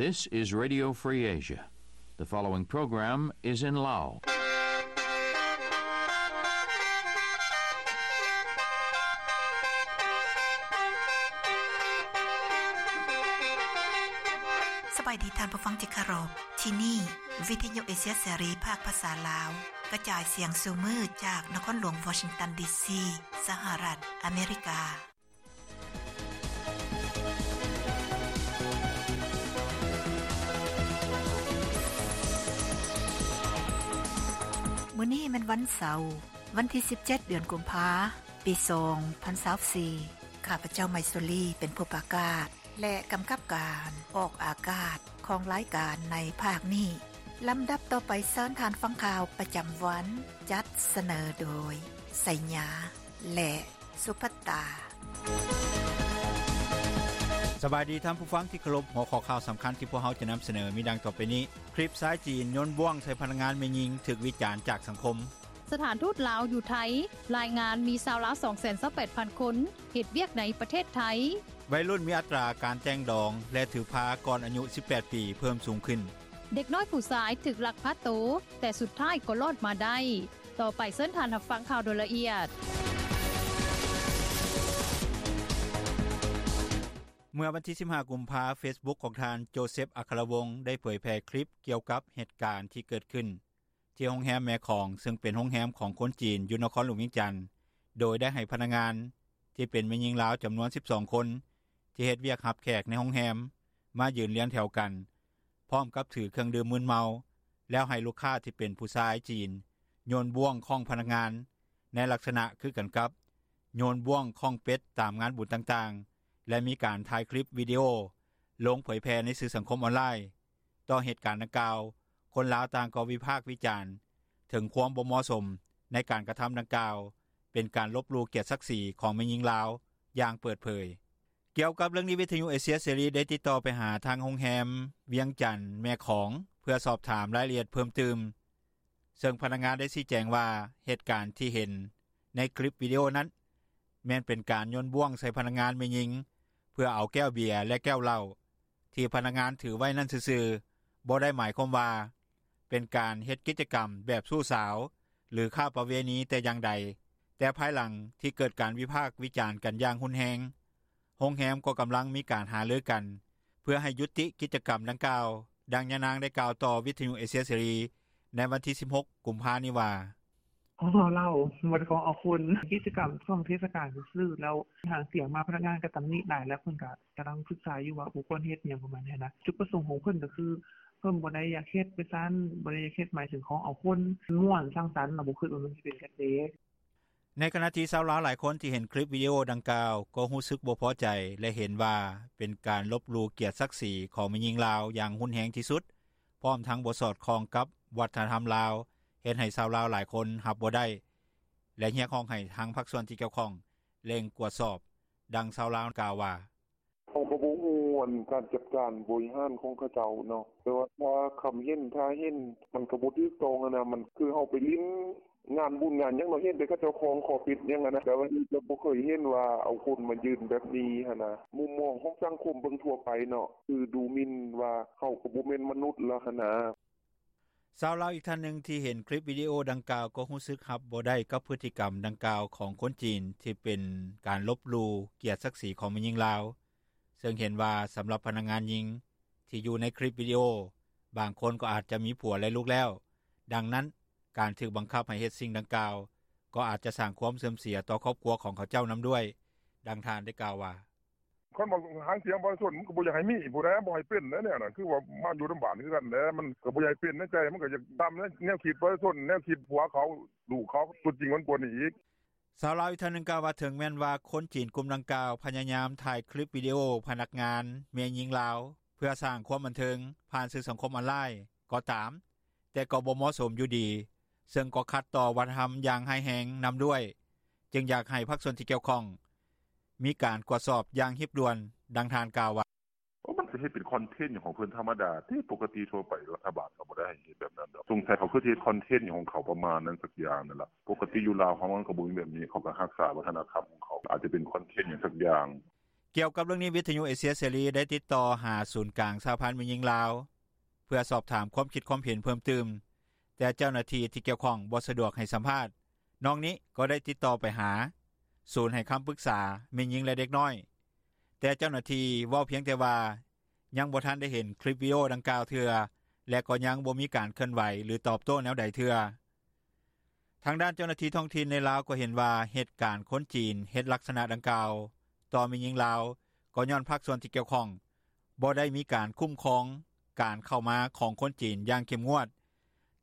This is Radio Free Asia. The following program is in Lao. ສະບາຍດີທ່ານຜູ້ຟັງທີ່ເຄົາລົບ. ທີ່ນີ້ ວິທະຍຸເອເຊຍເສລີ ພາກພາສາລາວ ກະຈາຍສຽງສູ່ມື້ຈາກນະຄອນຫຼວງວໍຊິງຕັນ ດີຊີ ສະຫະລັດອາເມລິກາ. ມື້ນີ້ແມ່ນວັນເສົາ, ວັນທີສິບເຈັດ ເດືອນກຸມພາ ປີສອງພັນຊາວສີ່. ຂ້າພະເຈົ້າ ໄມຊູລີ ເປັນຜູ້ປະກາດ ແລະ ກຳກັບການອອກອາກາດຂອງລາຍການໃນພາກນີ້. ລຳດັບຕໍ່ໄປ ເຊີນທ່ານຟັງຂ່າວປະຈຳວັນ, ຈັດສະເໜີໂດຍ ໄຊຍາ ແລະ ສຸພັດຕາ. ສະບາຍດີທ່ານຜູ້ຟັງທີ່ເຄົາລົບ. ຫົວຂໍ້ຂ່າວສຳຄັນທີ່ພວກເຮົາຈະນຳສະເໜີມີດັ່ງຕໍ່ໄປນີ້: ຄລິບຊາຍຈີນໂຍນບ້ວງໃສ່ພະນັກງານແມ່ຍິງຖືກວິຈານຈາກສັງຄົມ. ສະຖານທູດລາວຢູ່ໄທລາຍງານມີຊາວລາວສອງແສນຊາວແປດພັນຄົນເຮັດວຽກໃນປະເທດໄທ. ໄວລຸ້ນມີອັດຕາການແຕ່ງດອງ ແລະ ຖືພາກ່ອນອາຍຸສິບແປດປີເພີ່ມສູງຂຶ້ນ. ເດັກນ້ອຍຜູ້ຊາຍຖືກລັກພາໂຕ ແຕ່ສຸດທ້າຍກໍລອດມາໄດ້. ຕໍ່ໄປເຊີນທ່ານຮັບຟັງຂ່າວໂດຍລະອຽດ. ເມື່ອວັນທີສິບຫ້າ ກຸມພາ ເຟສບຸກຂອງທ່ານ ໂຈເຊັບ ອັກຄະລະວົງ ໄດ້ເຜີຍແຜ່ຄລິບກ່ຽວກັບເຫດການທີ່ເກີດຂຶ້ນ ທີ່ໂຮງແຮມແມ່ຂອງ ເຊິ່ງເປັນໂຮງແຮມຂອງຄົນຈີນຢູ່ນະຄອນຫຼວງວຽງຈັນ ໂດຍໄດ້ໃຫ້ພະນັກງານທີ່ເປັນແມ່ຍິງລາວຈຳນວນສິບສອງຄົນ ທີ່ເຮັດວຽກຮັບແຂກໃນໂຮງແຮມ ມາຢືນລຽງແຖວກັນ ພ້ອມກັບຖືເຄື່ອງດື່ມມຶນເມົາ ແລ້ວໃຫ້ລູກຄ້າທີ່ເປັນຜູ້ຊາຍຈີນໂຍນບ້ວງຄ້ອງພະນັກງານ ໃນລັກສະນະຄືກັນກັບໂຍນບ້ວງຄ້ອງເປັດຕາມງານບຸນຕ່າງໆ ແລະ ມີການຖ່າຍຄລິບວິດີໂອລົງເຜີຍແຜ່ໃນສື່ສັງຄົມອອນລາຍ. ຕໍ່ເຫດການດັ່ງກ່າວ, ຄົນລາວຕ່າງກໍວິພາກວິຈານເຖິງຄວາມບໍ່ເໝາະສົມໃນການກະທຳດັ່ງກ່າວ ເປັນການລົບຫຼູ່ກຽດສັກສີຂອງແມ່ຍິງລາວຢ່າງເປີດເຜີຍ. ກ່ຽວກັບເລື່ອງນີ້, ວິທະຍຸເອເຊຍເສລີໄດ້ຕິດຕໍ່ໄປຫາທາງໂຮງແຮມວຽງຈັນແມ່ຂອງ ເພື່ອສອບຖາມລາຍລະອຽດເພີ່ມຕື່ມ, ເຊິ່ງພະນັກງານໄດ້ຊີ້ແຈງວ່າ ເຫດການທີ່ເຫັນໃນຄລິບວິດີໂອນັ້ນ ແມ່ນເປັນການໂຍນບ້ວງໃສ່ພະນັກງານແມ່ຍິງ ເພື່ອເອົາແກ້ວເບຍ ແລະ ແກ້ວເຫຼົ້າ ທີ່ພະນັກງານຖືໄວ້ນັ້ນຊື່ໆ, ບໍ່ໄດ້ໝາຍຄວາມວ່າເປັນການເຮັດກິດຈະກຳແບບຊູ້ສາວ ຫຼື ຄ້າປະເວນີແຕ່ຢ່າງໃດ, ແຕ່ພາຍຫຼັງທີ່ເກີດການວິພາກວິຈານກັນຢ່າງຮຸນແຮງ, ໂຮງແຮມກໍກຳລັງມີການຫາລືກັນ ເພື່ອໃຫ້ຢຸດຕິກິດຈະກຳດັ່ງກ່າວ, ດັ່ງຍານາງໄດ້ກ່າວຕໍ່ວິທະຍຸເອເຊຍເສລີໃນວັນທີສິບຫົກ ກຸມພານີ້ວ່າ: ຂອງເອົາເຫຼົ້າ ບໍ່ໄດ້ຂອງເອົາຄົນ, ກິດຈະກຳຊ່ວງເທດສະການຊື່ໆ ແລ້ວຫາງສຽງມາ ພະນັກງານກໍຕຳໜິຫຼາຍ ແລ້ວເພິ່ນກໍກຳລັງສຶກສາຢູ່ວ່າບໍ່ຄວນເຮັດ ຫຍັງປະມານນີ້ນະ. ຈຸດປະສົງຂອງເພິ່ນກໍຄື ເພິ່ນບໍ່ໄດ້ຢາກເຮັດໄປຊັ້ນ, ບໍ່ໄດ້ຢາກເຮັດໝາຍເຖິງຂອງເອົາຄົນ, ມ່ວນສັງສັນ ລະບໍ່ຄິດວ່າມັນຊິເປັນກະແສ. ໃນຂະນະທີ່ຊາວລາວຫຼາຍຄົນທີ່ເຫັນຄລິບວິດີໂອດັ່ງກ່າວ ກໍຮູ້ສຶກບໍ່ພໍໃຈ ແລະ ເຫັນວ່າເປັນການລົບຫຼູ່ກຽດສັກສີຂອງແມ່ຍິງລາວຢ່າງຮຸນແຮງທີ່ສຸດ, ພ້ອມທັງບໍ່ສອດຄ່ອງກັບວັດທະນະທຳລາວ, ເຮັດໃຫ້ຊາວລາວຫຼາຍຄົນຮັບບໍ່ໄດ້ ແລະ ຮຽກຮ້ອງໃຫ້ທາງພາກສ່ວນທີ່ກ່ຽວຂ້ອງເລັ່ງກວດສອບ, ດັ່ງຊາວລາວກ່າວວ່າ: ເຮົາກໍບໍ່ຮູ້ອັນການຈັດການບໍລິຫານຂອງເຂົາເຈົ້າເນາະ, ແຕ່ວ່າຖ້າຄຳເຫັນ ຖ້າເຫັນມັນກໍບໍ່ຖືກຕ້ອງຫັ້ນນະ, ມັນຄືເຮົາໄປຫຼິ້ນງານບຸນງານຫຍັງເນາະ, ເຫັນແຕ່ເຂົາເຈົ້າຄອງຂໍປິດຫຍັງຫັ້ນນະ, ແຕ່ວ່ານີ້ກໍບໍ່ເຄີຍເຫັນວ່າເອົາຄົນມາຢືນແບບນີ້ຫັ້ນນະ. ມຸມມອງຂອງສັງຄົມເບິ່ງທົ່ວໄປເນາະ ຄືດູໝິ່ນວ່າເຂົາກໍບໍ່ແມ່ນມະນຸດແລ້ວຫັ້ນນະ. ຊາວລາວອີກທ່ານໜຶ່ງທີ່ເຫັນຄລິບວິດີໂອດັ່ງກ່າວກໍຮູ້ສຶກຮັບບໍ່ໄດ້ກັບພຶດຕິກຳດັ່ງກ່າວຂອງຄົນຈີນ ທີ່ເປັນການລົບຫຼູ່ກຽດສັກສີຂອງແມ່ຍິງລາວ, ເຊິ່ງເຫັນວ່າສຳລັບພະນັກງານຍິງທີ່ຢູ່ໃນຄລິບວິດີໂອ ບາງຄົນກໍອາດຈະມີຜົວ ແລະ ລູກແລ້ວ, ດັ່ງນັ້ນ ການຖືກບັງຄັບໃຫ້ເຮັດສິ່ງດັ່ງກ່າວ ກໍອາດຈະສ້າງຄວາມເສື່ອມເສຍຕໍ່ຄອບຄົວຂອງເຂົາເຈົ້ານຳດ້ວຍ, ດັ່ງທ່ານໄດ້ກ່າວວ່າ: ຄັນວ່າຫາງສຽງປະຊາຊົນ ມັນກໍບໍ່ຢາກໃຫ້ມີຜູ້ໃດ ບໍ່ໃຫ້ເປັນແນວນັ້ນ, ຄືວ່າມາຢູ່ນຳບ້ານຄືກັນແຫຼະ, ມັນກໍບໍ່ຢາກໃຫ້ເປັນໃນໃຈ, ມັນກໍຢາກຕາມແນວ ແນວຄິດປະຊາຊົນ, ແນວຄິດຜົວເຂົາ ລູກເຂົາ, ຕົວຈິງມັນກວ່ານີ້ອີກ. ຊາວລາວອີກທ່ານໜຶ່ງກ່າວວ່າ ເຖິງແມ່ນວ່າຄົນຈີນກຸ່ມດັ່ງກ່າວພະຍາຍາມຖ່າຍຄລິບວິດີໂອພະນັກງານແມ່ຍິງລາວ ເພື່ອສ້າງຄວາມບັນເທີງຜ່ານສື່ສັງຄົມອອນລາຍກໍຕາມ, ແຕ່ກໍບໍ່ເໝາະສົມຢູ່ດີ, ເຊິ່ງກໍຂັດຕໍ່ວັດທະນະທຳຢ່າງຮ້າຍແຮງນຳດ້ວຍ, ຈຶ່ງຢາກໃຫ້ພາກສ່ວນທີ່ກ່ຽວຂ້ອງມີການກວດສອບຢ່າງຮີບດ່ວນ, ດັ່ງທ່ານກ່າວວ່າ: ໂອ້ ມັນກໍເຮັດເປັນຄອນເທັນຂອງເພິ່ນທຳມະດາເດ້, ປົກກະຕິທົ່ວໄປລັດຖະບານກໍບໍ່ໄດ້ໃຫ້ເຮັດແບບນັ້ນດອກ, ສົງໄສເຂົາຄືຊິເຮັດຄອນເທັນຂອງເຂົາປະມານນັ້ນສັກຢ່າງນັ້ນລະ, ປົກກະຕິຢູ່ລາວເຮົາມັນກໍບໍ່ມີແບບນີ້, ເຂົາກໍຮັກສາວັດທະນະທຳຂອງເຂົາ, ອາດຈະເປັນຄອນເທັນຫຍັງສັກຢ່າງ. ກ່ຽວກັບເລື່ອງນີ້ ວິທຍຸເອເຊຍເສລີ ໄດ້ຕິດຕໍ່ຫາສູນກາງສະຫະພັນແມ່ຍິງລາວ ເພື່ອສອບຖາມຄວາມຄິດຄວາມເຫັນເພີ່ມຕື່ມ ແຕ່ເຈົ້າໜ້າທີ່ທີ່ກ່ຽວຂ້ອງບໍ່ສະດວກໃຫ້ສຳພາດ. ນອກນີ້ກໍໄດ້ຕິດຕໍ່ໄປຫາ ສູນໃຫ້ຄຳປຶກສາແມ່ຍິງ ແລະເດັກນ້ອຍ ແຕ່ເຈົ້າໜ້າທີ່ເວົ້າພຽງແຕ່ວ່າ ຍັງບໍ່ທັນໄດ້ເຫັນຄລິບວິດີໂອດັ່ງກ່າວເທື່ອ ແລະກໍຍັງບໍ່ມີການເຄື່ອນໄຫວ ຫຼືຕອບໂຕ້ແນວໃດເທື່ອ. ທາງດ້ານເຈົ້າໜ້າທີ່ທ້ອງຖິ່ນໃນລາວ ກໍເຫັນວ່າເຫດການຄົນຈີນເຮັດລັກສະນະດັ່ງກ່າວ ຕໍ່ແມ່ຍິງລາວ ກໍຍ້ອນພາກສ່ວນທີ່ກ່ຽວຂ້ອງ ບໍ່ໄດ້ມີການຄຸ້ມຄອງການເຂົ້າມາຂອງຄົນຈີນຢ່າງເຂັ້ມງວດ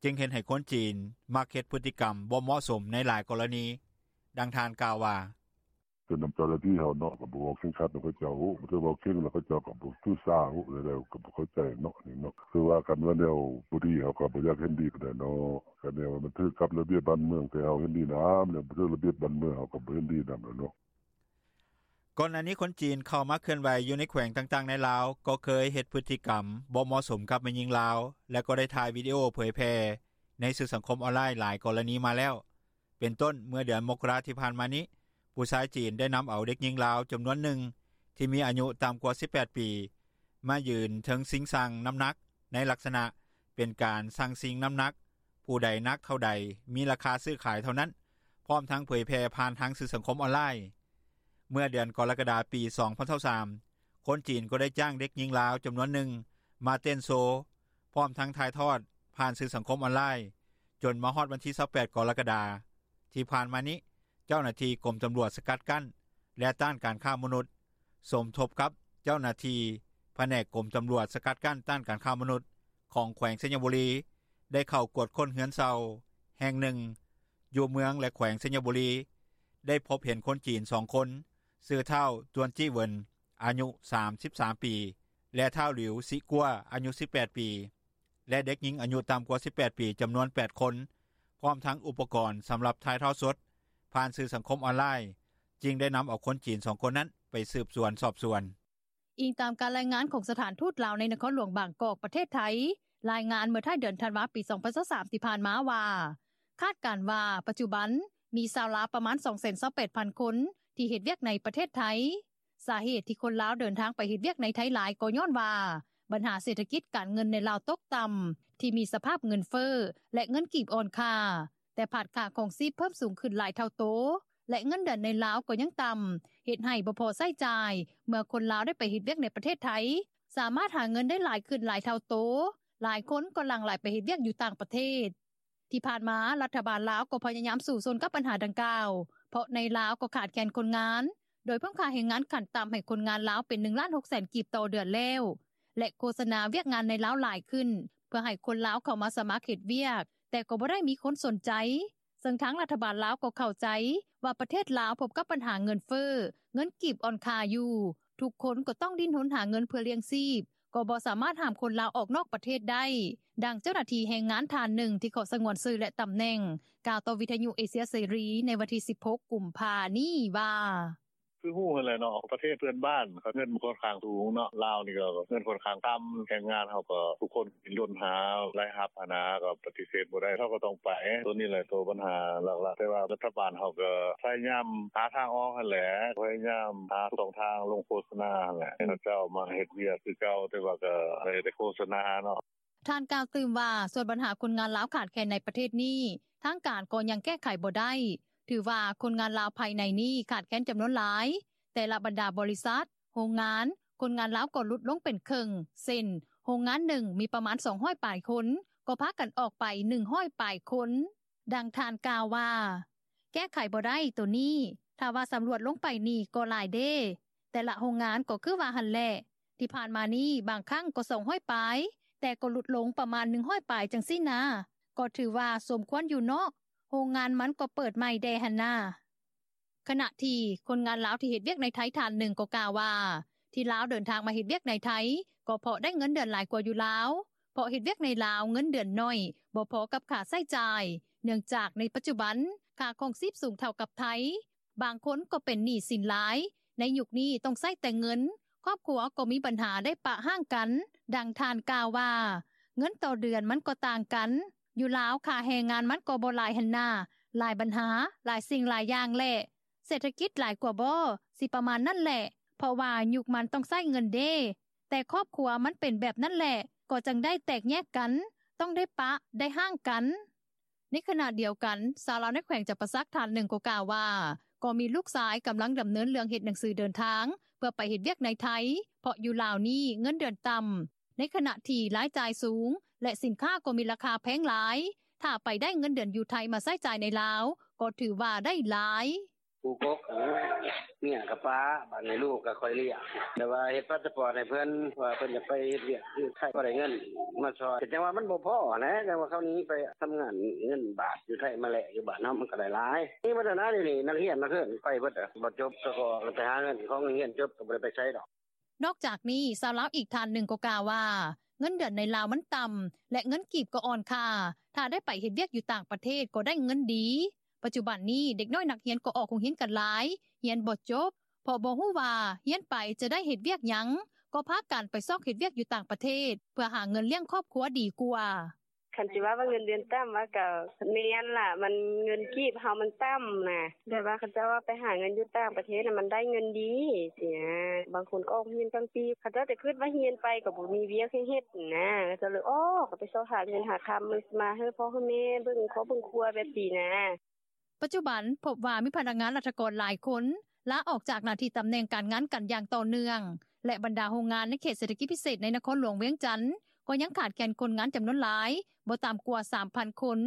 ຈຶ່ງເຮັດໃຫ້ຄົນຈີນມັກເຮັດພຶດຕິກຳບໍ່ເໝາະສົມໃນຫຼາຍກໍລະນີ. ດັ່ງທ່ານກ່າວວ່າ: ຄືນຳເຈົ້າໜ້າທີ່ເຮົາເນາະ ກໍບໍ່ເວົ້າເຄັ່ງຄັດນຳເຂົາເຈົ້າ ຖ້າເວົ້າເຄັ່ງແລ້ວເຂົາເຈົ້າກໍບໍ່ຖືສາ ແລ້ວກໍບໍ່ເຂົ້າໃຈເນາະ ນີ້ເນາະ ຄືວ່າຄັນວ່າແນວບໍ່ດີ ເຮົາກໍບໍ່ຢາກເຫັນດີປານໃດເນາະ ຄັນແນວວ່າມັນຖືກກັບລະບຽບບ້ານເມືອງ ແຕ່ເຮົາເຫັນດີນຳ ແນວບໍ່ຖືກລະບຽບບ້ານເມືອງ ເຮົາກໍບໍ່ເຫັນດີນຳແລ້ວເນາະ. ກ່ອນໜ້ານີ້ຄົນຈີນເຂົ້າມາເຄື່ອນໄຫວຢູ່ໃນແຂວງຕ່າງໆໃນລາວ ກໍເຄີຍເຮັດພຶດຕິກຳບໍ່ເໝາະສົມກັບແມ່ຍິງລາວ ແລະກໍໄດ້ຖ່າຍວິດີໂອເຜີຍແຜ່ໃນສື່ສັງຄົມອອນລາຍຫຼາຍກໍລະນີມາແລ້ວ ເປັນຕົ້ນເມື່ອເດືອນມົກກະລາທີ່ຜ່ານມານີ້ ຜູ້ຊາຍຈີນໄດ້ນຳເອົາເດັກຍິງລາວຈຳນວນໜຶ່ງ ທີ່ມີອາຍຸຕ່ຳກວ່າສິບແປດປີ ມາຢືນເທິງຊິງຊັ່ງນ້ຳໜັກ ໃນລັກສະນະເປັນການຊັ່ງຊິງນ້ຳໜັກ ຜູ້ໃດໜັກເທົ່າໃດ ມີລາຄາຊື້ຂາຍເທົ່ານັ້ນ ພ້ອມທັງເຜີຍແຜ່ຜ່ານທາງສື່ສັງຄົມອອນລາຍ. ເມື່ອເດືອນກໍລະກະດາ ປີສອງພັນຊາວສາມ ຄົນຈີນກໍໄດ້ຈ້າງເດັກຍິງລາວຈຳນວນໜຶ່ງມາເຕັ້ນໂຊ ພ້ອມທັງຖ່າຍທອດຜ່ານສື່ສັງຄົມອອນລາຍ ຈົນມາຮອດວັນທີຊາວແປດ ກໍລະກະດາທີ່ຜ່ານມານີ້ ເຈົ້າໜ້າທີ່ກົມຕຳຫຼວດສະກັດກັ້ນ ແລະ ຕ້ານການຄ້າມະນຸດ ສົມທົບກັບເຈົ້າໜ້າທີ່ພະແນກກົມຕຳຫຼວດສະກັດກັ້ນ ຕ້ານການຄ້າມະນຸດ ຂອງແຂວງໄຊຍະບູລີ ໄດ້ເຂົ້າກວດຄົ້ນເຮືອນເຊົ່າແຫ່ງໜຶ່ງ ຢູ່ເມືອງ ແລະ ແຂວງໄຊຍະບູລີ ໄດ້ພົບເຫັນຄົນຈີນສອງຄົນ ຊື່ ທ້າວ ຕວນຈີ້ເຫວິນ ອາຍຸສາມສິບສາມປີ ແລະ ທ້າວ ຫຼິວ ຊິກົວ ອາຍຸສິບແປດປີ ແລະ ເດັກຍິງອາຍຸຕ່ຳກວ່າສິບແປດປີ ຈຳນວນແປດຄົນ ພ້ອມທັງອຸປະກອນສຳລັບຖ່າຍທອດສົດຜ່ານສື່ສັງຄົມອອນລາຍ ຈຶ່ງໄດ້ນຳເອົາຄົນຈີນສອງຄົນນັ້ນໄປສືບສວນສອບສວນ. ອີງຕາມການລາຍງານຂອງສະຖານທູດລາວໃນນະຄອນຫຼວງບາງກອກ ປະເທດໄທ ລາຍງານເມື່ອທ້າຍເດືອນທັນວາ ປີສອງພັນຊາວສາມ ທີ່ຜ່ານມາວ່າ ຄາດການວ່າປັດຈຸບັນມີຊາວລາວປະມານສອງແສນຊາວແປດພັນຄົນ ທີ່ເຮັດວຽກໃນປະເທດໄທ. ສາເຫດທີ່ຄົນລາວເດີນທາງໄປເຮັດວຽກໃນໄທຫຼາຍ ກໍຍ້ອນວ່າບັນຫາເສດຖະກິດການເງິນໃນລາວຕົກຕ່ຳ ທີ່ມີສະພາບເງິນເຟີ້ ແລະ ເງິນກີບອ່ອນຄ່າ ແຕ່ພາດຄ່າຄອງຊີບເພີ່ມສູງຂຶ້ນຫຼາຍເທົ່າໂຕ ແລະ ເງິນເດືອນໃນລາວກໍຍັງຕ່ຳ ເຮັດໃຫ້ບໍ່ພໍໃຊ້ຈ່າຍ ເມື່ອຄົນລາວໄດ້ໄປເຮັດວຽກໃນປະເທດໄທ ສາມາດຫາເງິນໄດ້ຫຼາຍຂຶ້ນຫຼາຍເທົ່າໂຕ ຫຼາຍຄົນກໍຫຼັ່ງໄຫຼໄປເຮັດວຽກຢູ່ຕ່າງປະເທດ. ທີ່ຜ່ານມາລັດຖະບານລາວກໍພະຍາຍາມສູ້ຊົນກັບບັນຫາດັ່ງກ່າວ ເພາະໃນລາວກໍຂາດແຄນຄົນງານ ໂດຍເພີ່ມຄ່າແຮງງານຂັ້ນຕ່ຳໃຫ້ຄົນງານລາວເປັນໜຶ່ງລ້ານຫົກແສນກີບຕໍ່ເດືອນແລ້ວ ແລະ ໂຄສະນາວຽກງານໃນລາວຫຼາຍຂຶ້ນ ເພື່ອໃຫ້ຄົນລາວເຂົ້າມາສະໝັກເຮັດວຽກ ແຕ່ກໍບໍ່ໄດ້ມີຄົນສົນໃຈ ເຊິ່ງທາງລັດຖະບານລາວກໍເຂົ້າໃຈວ່າປະເທດລາວພົບກັບບັນຫາເງິນເຟີ້ ເງິນກີບອ່ອນຄ່າຢູ່ ທຸກຄົນກໍຕ້ອງດີ້ນຮົນຫາເງິນເພື່ອລ້ຽງຊີບ ກໍບໍ່ສາມາດຫ້າມຄົນລາວອອກນອກປະເທດໄດ້. ດັ່ງເຈົ້າໜ້າທີ່ແຮງງານທ່ານໜຶ່ງທີ່ຂໍສະຫງວນຊື່ ແລະ ຕຳແໜ່ງ ກ່າວຕໍ່ວິທຍຸເອເຊຍເສລີໃນວັນທີສິບຫົກ ກຸມພານີ້ວ່າ: ຄືຮູ້ຫັ້ນແຫຼະເນາະ ປະເທດເພື່ອນບ້ານເຂົາເງິນມັນຂ້ອນຂ້າງສູງເນາະ ລາວນີ້ກໍເງິນຂ້ອນຂ້າງຕ່ຳ ແຮງງານເຮົາກໍທຸກຄົນດີ້ນຮົນຫາລາຍຮັບຫັ້ນນະ ກໍປະຕິເສດບໍ່ໄດ້ ເຮົາກໍຕ້ອງໄປ ໂຕນີ້ແຫຼະໂຕບັນຫາຫຼັກໆ ແຕ່ວ່າລັດຖະບານເຮົາກໍພະຍາຍາມຫາທາງອອກຫັ້ນແຫຼະ ພະຍາຍາມຫາຊ່ອງທາງລົງໂຄສະນາຫັ້ນແຫຼະ ໃຫ້ເຂົາເຈົ້າມາເຮັດວຽກຄືເກົ່າ ແຕ່ວ່າກໍໄດ້ແຕ່ໂຄສະນາເນາະ. ທ່ານກ່າວຕື່ມວ່າ ສ່ວນບັນຫາຄົນງານລາວຂາດແຄນໃນປະເທດນີ້ ທາງການກໍຍັງແກ້ໄຂບໍ່ໄດ້ ຖືວ່າຄົນງານລາວພາຍໃນນີ້ຂາດແຄນຈຳນວນຫຼາຍ ແຕ່ລະບັນດາບໍລິສັດ, ໂຮງງານ ຄົນງານລາວກໍຫຼຸດລົງເປັນເຄິ່ງ ເຊັ່ນ ໂຮງງານໜຶ່ງມີປະມານສອງຮ້ອຍປາຍຄົນ ກໍພາກັນອອກໄປໜຶ່ງຮ້ອຍປາຍຄົນ. ດັ່ງທ່ານກ່າວວ່າ ແກ້ໄຂບໍ່ໄດ້ໂຕນີ້ ຖ້າວ່າສຳຫຼວດລົງໄປນີ້ກໍຫຼາຍເດ້ ແຕ່ລະໂຮງງານກໍຄືວ່າຫັ້ນແຫຼະ ທີ່ຜ່ານມານີ້ບາງຄັ້ງກໍສອງຮ້ອຍປາຍ ແຕ່ກໍຫຼຸດລົງປະມານໜຶ່ງຮ້ອຍປາຍຈັ່ງຊີ້ນາ ກໍຖືວ່າສົມຄວນຢູ່ເນາະ ໂຮງງານມັນກໍເປີດໃໝ່ແດ່ຫັ້ນນາ. ຂະນະທີ່ຄົນງານລາວທີ່ເຮັດວຽກໃນໄທທ່ານໜຶ່ງກໍກ່າວວ່າ ທີ່ລາວເດີນທາງມາເຮັດວຽກໃນໄທ ກໍເພາະໄດ້ເງິນເດືອນຫຼາຍກວ່າຢູ່ລາວ ເພາະເຮັດວຽກໃນລາວເງິນເດືອນໜ້ອຍ ບໍ່ພໍກັບຄ່າໃຊ້ຈ່າຍ ເນື່ອງຈາກໃນປັດຈຸບັນຄ່າຄອງຊີບສູງເທົ່າກັບໄທ ບາງຄົນກໍເປັນໜີ້ສິນຫຼາຍ ໃນຍຸກນີ້ຕ້ອງໃຊ້ແຕ່ເງິນ ຄອບຄົວກໍມີບັນຫາໄດ້ປະຮ້າງກັນ. ດັ່ງທ່ານກ່າວວ່າ ເງິນຕໍ່ເດືອນມັນກໍຕ່າງກັນ ຢູ່ລາວຄ່າແຮງງານມັນກໍບໍ່ຫຼາຍຫັ້ນນາ ຫຼາຍບັນຫາ ຫຼາຍສິ່ງຫຼາຍຢ່າງແຫຼະ ເສດຖະກິດຫຼາຍກວ່າບໍ່ ຊິປະມານນັ້ນແຫຼະ ເພາະວ່າຍຸກມັນຕ້ອງໃຊ້ເງິນເດ້ ແຕ່ຄອບຄົວມັນເປັນແບບນັ້ນແຫຼະ ກໍຈຶ່ງໄດ້ແຕກແຍກກັນ ຕ້ອງໄດ້ປະໄດ້ຮ້າງກັນ. ໃນຂະນະດຽວກັນ ຊາວລາວໃນແຂວງຈຳປາສັກທ່ານໜຶ່ງກໍກ່າວວ່າ ກໍມີລູກຊາຍກຳລັງດຳເນີນເລື່ອງເຮັດໜັງສືເດີນທາງ ເພື່ອໄປເຮັດວຽກໃນໄທ ເພາະຢູ່ລາວນີ້ເງິນເດືອນຕ່ຳ ໃນຂະນະທີ່ລາຍຈ່າຍສູງ ແລະສິນຄ້າກໍມີລາຄາແພງຫຼາຍ ຖ້າໄປໄດ້ເງິນເດືອນຢູ່ໄທມາໃຊ້ຈ່າຍໃນລາວ ກໍຖືວ່າໄດ້ຫຼາຍ. ຜູ້ກົກເມຍກໍປະ ບາດນີ້ລູກກໍຂ້ອຍລ້ຽງ ແຕ່ວ່າເຮັດພາສປອດໃຫ້ເພິ່ນ ວ່າເພິ່ນຈະໄປເຮັດວຽກຢູ່ໄທ ກໍໄດ້ເງິນມາຊ່ອຍ ກໍຈັ່ງວ່າມັນບໍ່ພໍຫັ້ນແຫຼະ ຈັ່ງວ່າເຂົາໜີໄປທຳງານ ເງິນບາດຢູ່ໄທມາແລກຢູ່ບ້ານເຮົາ ມັນກໍໄດ້ຫຼາຍ ມີໝົດຫັ້ນນະ ດຽວນີ້ນັກຮຽນນັກເຮີນໄປເບິດ ບໍ່ຈົບກໍໄປຫາເງິນຂອງໂຮງຮຽນ ຈົບກໍບໍ່ໄດ້ໄປໃສດອກ. ນອກຈາກນີ້ ຊາວລາວອີກທ່ານໜຶ່ງກໍກ່າວວ່າ ເງິນເດືອນໃນລາວມັນຕ່ຳ ແລະເງິນກີບກໍອ່ອນຄ່າ ຖ້າໄດ້ໄປເຮັດວຽກຢູ່ຕ່າງປະເທດກໍໄດ້ເງິນດີ. ປັດຈຸບັນນີ້ເດັກນ້ອຍນັກຮຽນກໍອອກໂຮງຮຽນກັນຫຼາຍ ຮຽນບໍ່ຈົບ ເພາະບໍ່ຮູ້ວ່າຮຽນໄປຈະໄດ້ເຮັດວຽກຫຍັງ ກໍພາກັນໄປຊອກເຮັດວຽກຢູ່ຕ່າງປະເທດ ເພື່ອຫາເງິນລ້ຽງຄອບຄົວດີກວ່າ. ຄັນຊິວ່າວ່າເງິນເດືອນຕ່ຳ ວ່າກໍແມ່ນລະ ມັນເງິນກີບເຮົາມັນຕ່ຳນະ ແບບວ່າເຂົາເຈົ້າວ່າໄປຫາເງິນຢູ່ຕ່າງປະເທດນະ ມັນໄດ້ເງິນດີຊີ້ນະ ບາງຄົນກໍອອກຮຽນກາງປີ ເຂົາເຈົ້າຈະຄິດວ່າຮຽນໄປກໍບໍ່ມີວຽກໃຫ້ເຮັດນະ ເຂົາເຈົ້າເລີຍອອກ ກໍໄປຊອກຫາເງິນຫາຄຳມາໃຫ້ພໍ່ໃຫ້ແມ່ເບິ່ງຄອບເບິ່ງຄົວແບບຊີ້ນະ. ປັດຈຸບັນພົບວ່າມີພະນັກງານລັດຖະກອນຫຼາຍຄົນລາອອກຈາກໜ້າທີ່ຕຳແໜ່ງການງານກັນຢ່າງຕໍ່ເນື່ອງ ແລະບັນດາໂຮງງານໃນເຂດເສດຖະກິດພິເສດໃນນະຄອນຫຼວງວຽງຈັນ ກໍຍັງຂາດແຄນຄົນງານຈຳນວນຫຼາຍ ບໍ່ຕ່ຳກວ່າ ສາມພັນຄົນ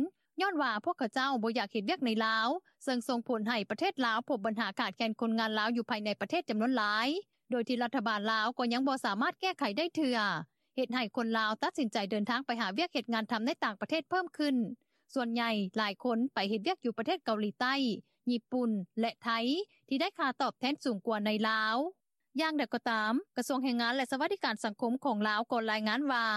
ຍ້ອນວ່າພວກເຂົາເຈົ້າບໍ່ຢາກເຮັດວຽກໃນລາວ ເຊິ່ງສົ່ງຜົນໃຫ້ປະເທດລາວພົບບັນຫາຂາດແຄນຄົນງານລາວຢູ່ພາຍໃນປະເທດຈຳນວນຫຼາຍ ໂດຍທີ່ລັດຖະບານລາວກໍຍັງບໍ່ສາມາດແກ້ໄຂໄດ້ເທື່ອ ເຮັດໃຫ້ຄົນລາວຕັດສິນໃຈເດີນທາງໄປຫາວຽກເຮັດງານທຳໃນຕ່າງປະເທດເພີ່ມຂຶ້ນ. ສ່ວນໃຫຍ່ຫຼາຍຄົນໄປເຮັດວຽກຢູ່ປະເທດເກົາຫຼີໃຕ້, ຍີ່ປຸ່ນ ແລະ ໄທ ທີ່ໄດ້ຄ່າຕອບແທນສູງກວ່າໃນລາວ. ຢ່າງໃດກໍຕາມ, ກະຊວງແຮງງານ ແລະ ສະຫວັດດີການສັງຄົມຂອງລາວກໍລາຍງານວ່າ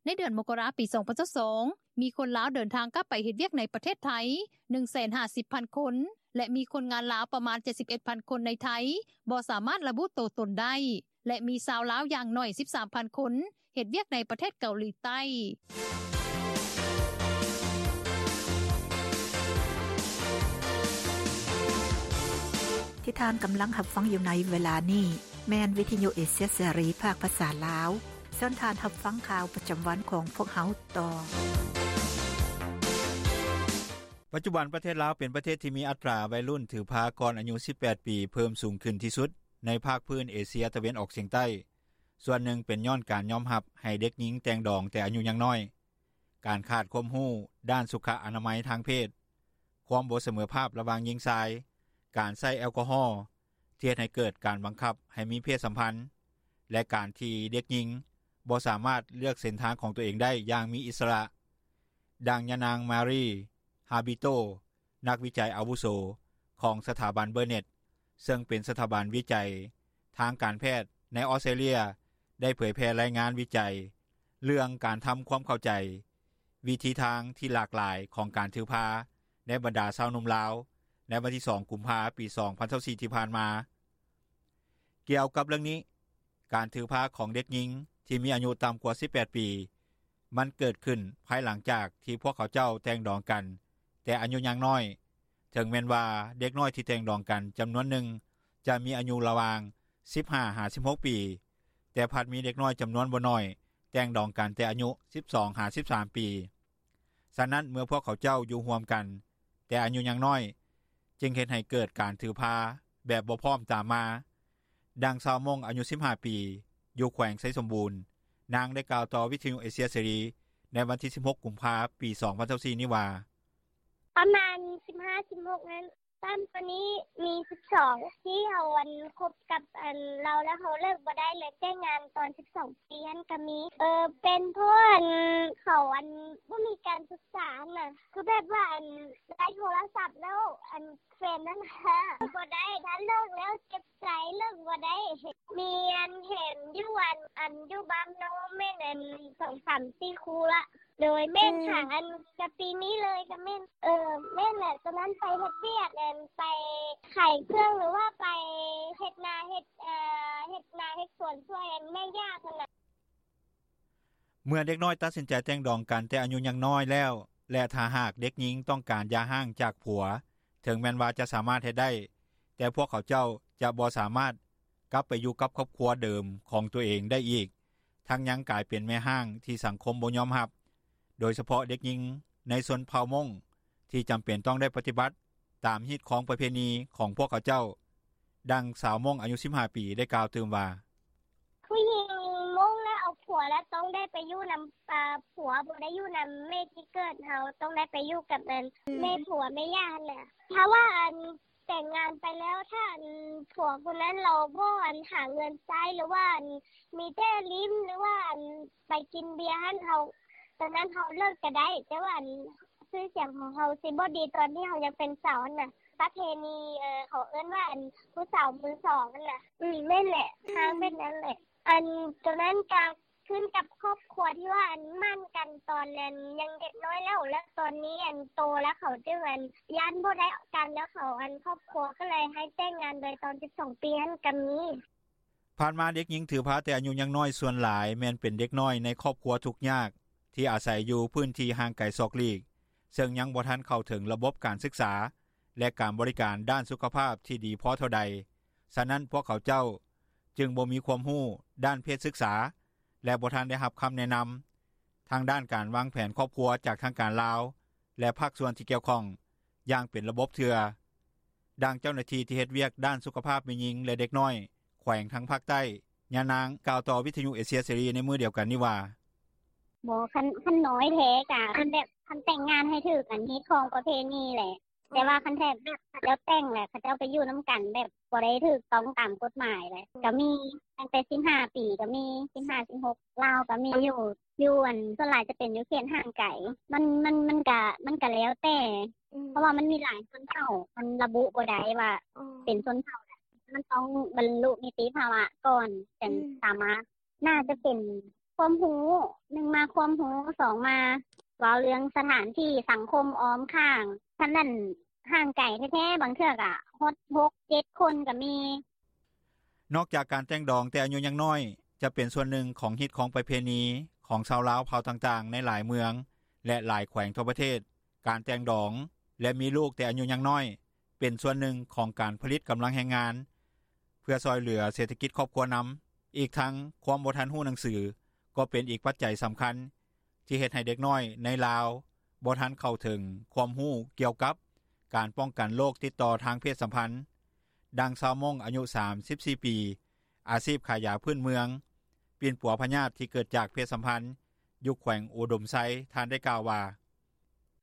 ໃນເດືອນມົກກະລາ ປີສອງພັນຊາວສອງ ມີຄົນລາວເດີນທາງກັບໄປເຮັດວຽກໃນປະເທດໄທ ໜຶ່ງແສນຫ້າສິບພັນຄົນ ແລະ ມີຄົນງານລາວປະມານ ເຈັດສິບເອັດພັນຄົນໃນໄທ ບໍ່ສາມາດລະບຸໂຕຕົນໄດ້ ແລະ ມີຊາວລາວຢ່າງໜ້ອຍ ສິບສາມພັນຄົນ ເຮັດວຽກໃນປະເທດເກົາຫຼີໃຕ້. ທີ່ທ່ານກຳລັງຮັບຟັງຢູ່ໃນເວລານີ້ ແມ່ນວິທະຍຸເອເຊຍເສລີ ພາກພາສາລາວ. ເຊີນທ່ານຮັບຟັງຂ່າວປະຈຳວັນຂອງພວກເຮົາຕໍ່. ປັດຈຸບັນປະເທດລາວເປັນປະເທດທີ່ມີອັດຕາໄວລຸ້ນຖືພາກ່ອນອາຍຸສິບແປດປີ ເພີ່ມສູງຂຶ້ນທີ່ສຸດໃນພາກພື້ນເອເຊຍຕາເວັນອອກສຽງໃຕ້. ສ່ວນໜຶ່ງເປັນຍ້ອນການຍອມຮັບໃຫ້ເດັກຍິງແຕ່ງດອງແຕ່ອາຍຸຍັງນ້ອຍ, ການຂາດຄວາມຮູ້ດ້ານສຸຂະອະນາໄມທາງເພດ, ຄວາມບໍ່ສະເໝີພາບລະຫວ່າງຍິງຊາຍ, ການໃຊ້ແອລກໍຮໍທີ່ເຮັດໃຫ້ເກີດການບັງຄັບໃຫ້ມີເພດສຳພັນ ແລະ ການທີ່ເດັກຍິງບໍ່ສາມາດເລືອກເສັ້ນທາງຂອງຕົວເອງໄດ້ຢ່າງມີອິດສະຫຼະ. ດັ່ງຍານາງ ມາຣີ ຮາບິໂຕ ນັກວິໄຈອາວຸໂສຂອງສະຖາບັນເບີເນັດ ເຊິ່ງເປັນສະຖາບັນວິໄຈທາງການແພດໃນອອສເຕຣເລັຽ ໄດ້ເຜີຍແຜ່ລາຍງານວິໄຈເລື່ອງການທຳຄວາມເຂົ້າໃຈວິທີທາງທີ່ຫຼາກຫຼາຍຂອງການຖືພາໃນບັນດາຊາວໜຸ່ມລາວ ໃນວັນທີສອງ ກຸມພາ ປີສອງພັນຊາວສີ່ ທີ່ຜ່ານມາ. ກ່ຽວກັບເລື່ອງນີ້, ການຖືພາຂອງເດັກຍິງທີ່ມີອາຍຸຕ່ຳກວ່າສິບແປດປີ ມັນເກີດຂຶ້ນພາຍຫຼັງຈາກທີ່ພວກເຂົາເຈົ້າແຕ່ງດອງກັນແຕ່ອາຍຸຍັງນ້ອຍ, ເຖິງແມ່ນວ່າເດັກນ້ອຍທີ່ແຕ່ງດອງກັນຈຳນວນໜຶ່ງຈະມີອາຍຸລະຫວ່າງສິບຫ້າຫາສິບຫົກປີ, ແຕ່ພັດມີເດັກນ້ອຍຈຳນວນບໍ່ໜ້ອຍແຕ່ງດອງກັນແຕ່ອາຍຸສິບສອງຫາສິບສາມປີ. ສະນັ້ນເມື່ອພວກເຂົາເຈົ້າຢູ່ຮ່ວມກັນແຕ່ອາຍຸຍັງນ້ອຍ, ຈຶ່ງເຮັດໃຫ້ເກີດການຖືພາແບບບໍ່ພ້ອມຕາມມາ. ດັ່ງຊາວມົ້ງອາຍຸສິບຫ້າປີ ຢູ່ແຂວງໄຊສົມບູນ, ນາງໄດ້ກ່າວຕໍ່ວິທະຍຸເອເຊຍເສລີໃນວັນທີສິບຫົກ ກຸມພາ ປີສອງພັນຊາວສີ່ນີ້ວ່າ: ປະມານສິບຫ້າ ສິບຫົກນັ້ນ, ຕ່ຳກວ່ານີ້ມີສິບສອງ ທີ່ເຮົາອັນຄົບກັບອັນລາວ ແລ້ວເຮົາເລີກບໍ່ໄດ້ ເລີຍແຕ່ງງານຕອນສິບສອງປີຫັ້ນກໍມີ. ເອີ ເປັນເພາະອັນເຂົາອັນບໍ່ມີການສຶກສາຫັ້ນນະ, ຄືແບບວ່າອັນໄດ້ໂທລະສັບແລ້ວ ອັນແຟນນັ້ນຫາບໍ່ໄດ້, ຖ້າເລີກແລ້ວເຈັບໃຈ ເລີກບໍ່ໄດ້. ມີອັນເຫັນຢູ່ອັນ ອັນຢູ່ບ້ານນ້ອງແມ່ນອັນສອງສາມສີ່ຄູ່ລະ. ໂດຍ ແມ່ນຫາ ອັນກະປີນີ້ເລີຍກະແມ່ນ. ເອີ ແມ່ນແຫຼະ, ຕອນນັ້ນໄປເຮັດວຽກ ອັນໄປຂາຍເຄື່ອງ ຫຼືວ່າໄປເຮັດນາ ເຮັດ ເອີ ເຮັດນາເຮັດສວນຊ່ວຍ ອັນແມ່ຍ່າພຸ້ນນະ. ເມື່ອເດັກນ້ອຍຕັດສິນໃຈແຕ່ງດອງກັນແຕ່ອາຍຸຍັງນ້ອຍແລ້ວ ແລະ ຖ້າຫາກເດັກຍິງຕ້ອງການຢ່າຮ້າງຈາກຜົວ, ເຖິງແມ່ນວ່າຈະສາມາດເຮັດໄດ້, ແຕ່ພວກເຂົາເຈົ້າຈະບໍ່ສາມາດ ກັບໄປຢູ່ກັບຄອບຄົວເດີມຂອງໂຕເອງໄດ້ອີກ ທັງຍັງກາຍເປັນແມ່ຮ້າງທີ່ສັງຄົມບໍ່ຍອມຮັບ ໂດຍສະເພາະເດັກຍິງໃນຊົນເຜົ່າມົ້ງ ທີ່ຈຳເປັນຕ້ອງໄດ້ປະຕິບັດຕາມຮີດຄອງປະເພນີຂອງພວກເຂົາເຈົ້າ. ດັ່ງຊາວມົ້ງອາຍຸ 15 ປີ ໄດ້ກ່າວຕື່ມວ່າ: ຜູ້ຍິງມົ້ງແລ້ວເອົາຜົວແລ້ວຕ້ອງໄດ້ໄປຢູ່ນຳ ອ່າ ຜົວ ບໍ່ໄດ້ຢູ່ນຳແມ່ທີ່ເກີດເຮົາ ຕ້ອງໄດ້ໄປຢູ່ກັບແມ່ຜົວແມ່ຍ່າຫັ້ນແຫຼະ ຖ້າວ່າອັນແຕ່ງງານໄປແລ້ວ ຖ້າອັນຜົວຄົນນັ້ນລາວບໍ່ອັນຫາເງິນໃຊ້ ຫຼືວ່າອັນມີແຕ່ຫຼິ້ນ ຫຼືວ່າອັນໄປກິນເບຍຫັ້ນ ເຮົາ ຕອນນັ້ນເຮົາເລີກກະໄດ້ ແຕ່ວ່າອັນຊື່ສຽງຂອງເຮົາຊິບໍ່ດີຕອນທີ່ເຮົາຍັງເປັນສາວຫັ້ນນະ ປະເພນີ ເຂົາເອີ້ນວ່າອັນຜູ້ສາວມືສອງຫັ້ນນະ ອືມ ແມ່ນແຫຼະ ຫາແມ່ນນັ້ນແຫຼະ ອັນໂຕນັ້ນກະຂຶ້ນກັບຄອບຄົວທີ່ວ່າອັນໝັ້ນກັນຕອນນັ້ນຍັງເດັກນ້ອຍແລ້ວ ແລ້ວຕອນນີ້ອັນໂຕແລ້ວເຂົາຈຶ່ງອັນຢ້ານບໍ່ໄດ້ກັນ ແລ້ວເຂົາອັນຄອບຄົວກະເລີຍໃຫ້ແຕ່ງງານເລີຍຕອນ 12 ປີຫັ້ນກະມີ. ຜ່ານມາເດັກຍິງຖືພາແຕ່ອາຍຸຍັງນ້ອຍສ່ວນຫຼາຍແມ່ນເປັນເດັກນ້ອຍໃນຄອບຄົວທຸກຍາກ ທີ່ອາໄສຢູ່ພື້ນທີ່ຫ່າງໄກສອກຫຼີກ ເຊິ່ງຍັງບໍ່ທັນເຂົ້າເຖິງລະບົບການສຶກສາ ແລະ ການບໍລິການດ້ານສຸຂະພາບທີ່ດີພໍເທົ່າໃດ ສະນັ້ນພວກເຂົາເຈົ້າຈຶ່ງບໍ່ມີຄວາມຮູ້ດ້ານເພດສຶກສາ ແລະ ບໍ່ທັນໄດ້ຮັບຄຳແນະນຳ ທາງດ້ານການວາງແຜນຄອບຄົວຈາກທາງການລາວ ແລະ ພາກສ່ວນທີ່ກ່ຽວຂ້ອງຢ່າງເປັນລະບົບເທື່ອ. ດັ່ງເຈົ້າໜ້າທີ່ທີ່ເຮັດວຽກດ້ານສຸຂະພາບແມ່ຍິງ ແລະ ເດັກນ້ອຍ ແຂວງທາງພາກໃຕ້ ຍານາງກ່າວຕໍ່ວິທຍຸເອເຊຍເສລີໃນມື້ດຽວກັນນີ້ວ່າ: ບໍ່ ຄັນນ້ອຍແທ້ກະຄັນແບບຄັນແຕ່ງງານໃຫ້ຖືກອັນຮີດຄອງປະເພນີແຫຼະ ແຕ່ວ່າຄັນແທ້ແບບເຂົາເຈົ້າແຕ່ງແລ້ວ ເຂົາເຈົ້າໄປຢູ່ນຳກັນແບບບໍ່ໄດ້ຖືກຕ້ອງຕາມກົດໝາຍແຫຼະ ກະມີຕັ້ງແຕ່ 15 ປີກະມີ 15-16 ລາວກະມີຢູ່ ຢູ່ອັນສ່ວນຫຼາຍຈະເປັນຢູ່ເຂດຫ່າງໄກ ມັນ ມັນ ມັນກະ ມັນກະແລ້ວແຕ່ ເພາະວ່າມັນມີຫຼາຍຊົນເຜົ່າ ມັນລະບຸບໍ່ໄດ້ວ່າເປັນຊົນເຜົ່າໃດ ມັນຕ້ອງບັນລຸນິຕິພາວະກ່ອນ ຈັ່ງສາມາດ ໜ້າຈະເປັນຄວາມຮູ້ ໜຶ່ງມາຄວາມຮູ້ ສອງມາເວົ້າເລື່ອງສະຖານທີ່ສັງຄົມອ້ອມຂ້າງ ຄັນນັ້ນຫ່າງໄກແທ້ໆ ບາງເທື່ອກະຮອດ 6-7 ຄົນກະມີ. ນອກຈາກການແຕ່ງດອງແຕ່ອາຍຸຍັງນ້ອຍ ຈະເປັນສ່ວນໜຶ່ງຂອງຮີດຄອງປະເພນີຂອງຊາວລາວເຜົ່າຕ່າງໆໃນຫຼາຍເມືອງ ແລະ ຫຼາຍແຂວງທົ່ວປະເທດ ການແຕ່ງດອງ ແລະ ມີລູກແຕ່ອາຍຸຍັງນ້ອຍ ເປັນສ່ວນໜຶ່ງຂອງການຜະລິດກຳລັງແຮງງານ ເພື່ອຊ່ອຍເຫຼືອເສດຖະກິດຄອບຄົວນຳ. ອີກທັງຄວາມບໍ່ທັນຮູ້ໜັງສື ກໍເປັນອີກປັດໄຈສຳຄັນ ທີ່ເຮັດໃຫ້ເດັກນ້ອຍໃນລາວບໍ່ທັນເຂົ້າເຖິງຄວາມຮູ້ກ່ຽວກັບການປ້ອງກັນໂລກຕິດຕໍ່ທາງເພດສຳພັນ. ດັ່ງຊາວມົ້ງອາຍຸ 34 ປີ ອາຊີບຂາຍຢາພື້ນເມືອງ ປິ່ນປົວພະຍາດທີ່ເກີດຈາກເພດສຳພັນ ຢູ່ແຂວງອຸດົມໄຊ ທ່ານໄດ້ກ່າວວ່າ: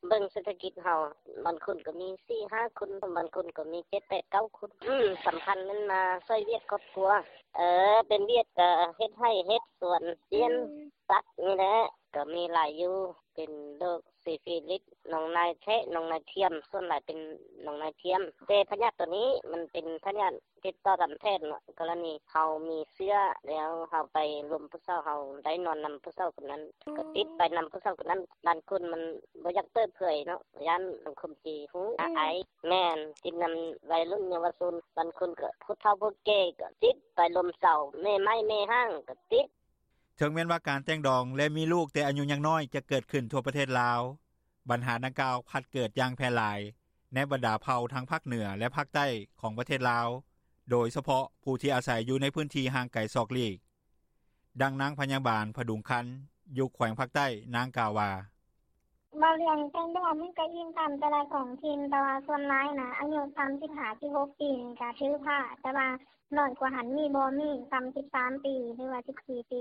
ເບິ່ງເສດຖະກິດເຮົາ ບາງຄົນກະມີ 4-5 ຄົນ ບາງຄົນກະມີ 7-8-9 ຄົນ ສຳຄັນແມ່ນມາຊ່ອຍວຽກຄອບຄົວ ເອີ ເປັນວຽກກະເຮັດໄຮ່ເຮັດສວນ ລ້ຽງສັດນີ້ແຫຼະ ກະມີຫຼາຍຢູ່ ເປັນໂລກຊີຟີລິດ ໜອງນາຍແທະ ໜອງນາຍທຽມ ສ່ວນຫຼາຍເປັນໜອງນາຍທຽມ ແຕ່ພະຍາດໂຕນີ້ມັນເປັນພະຍາດ ຕິດຕໍ່ຕາມແພດເນາະ ກໍລະນີເຮົາມີເຊື້ອແລ້ວ ເຮົາໄປລົມຜູ້ສາວ ເຮົາໄດ້ນອນນຳຜູ້ສາວຄົນນັ້ນ ກໍຕິດໄປນຳຜູ້ສາວຄົນນັ້ນ ບາງຄົນມັນບໍ່ຢາກເປີດເຜີຍເນາະ ຢ້ານສັງຄົມຊິຮູ້ ອາຍ ແມ່ນ ຕິດນຳໄວລຸ້ນເຍົາວະຊົນ ບາງຄົນກໍຜູ້ເຖົ້າຜູ້ແກ່ ກໍຕິດໄປລົມສາວ ແມ່ໄມ້ແມ່ຮ້າງກໍຕິດ. ເຖິງແມ່ນວ່າການແຕ່ງດອງ ແລະ ມີລູກແຕ່ອາຍຸຍັງນ້ອຍຈະເກີດຂຶ້ນທົ່ວປະເທດລາວ ບັນຫາດັ່ງກ່າວພັດເກີດຢ່າງແຜ່ຫຼາຍໃນບັນດາເຜົ່າທາງພາກເໜືອ ແລະ ພາກໃຕ້ຂອງປະເທດລາວ ໂດຍສະເພາະຜູ້ທີ່ອາໄສຢູ່ໃນພື້ນທີ່ຫ່າງໄກສອກຫຼີກ. ດັ່ງນາງພະຍາບານ ຜະດຸງຄັນ ຢູ່ແຂວງພາກໃຕ້ ນາງກ່າວວ່າ: ເວົ້າເລື່ອງແຕ່ງດອງມັນກະອີງຕາມແຕ່ລະທ້ອງຖິ່ນ ແຕ່ວ່າສ່ວນຫຼາຍນະ ອາຍຸ 35-16 ປີນີ້ກະຖືພາ ແຕ່ວ່າ ນ້ອຍກວ່າຫັ້ນມີບໍ່ ມີສ່ຳ 13 ປີ ຫຼືວ່າ 14 ປີ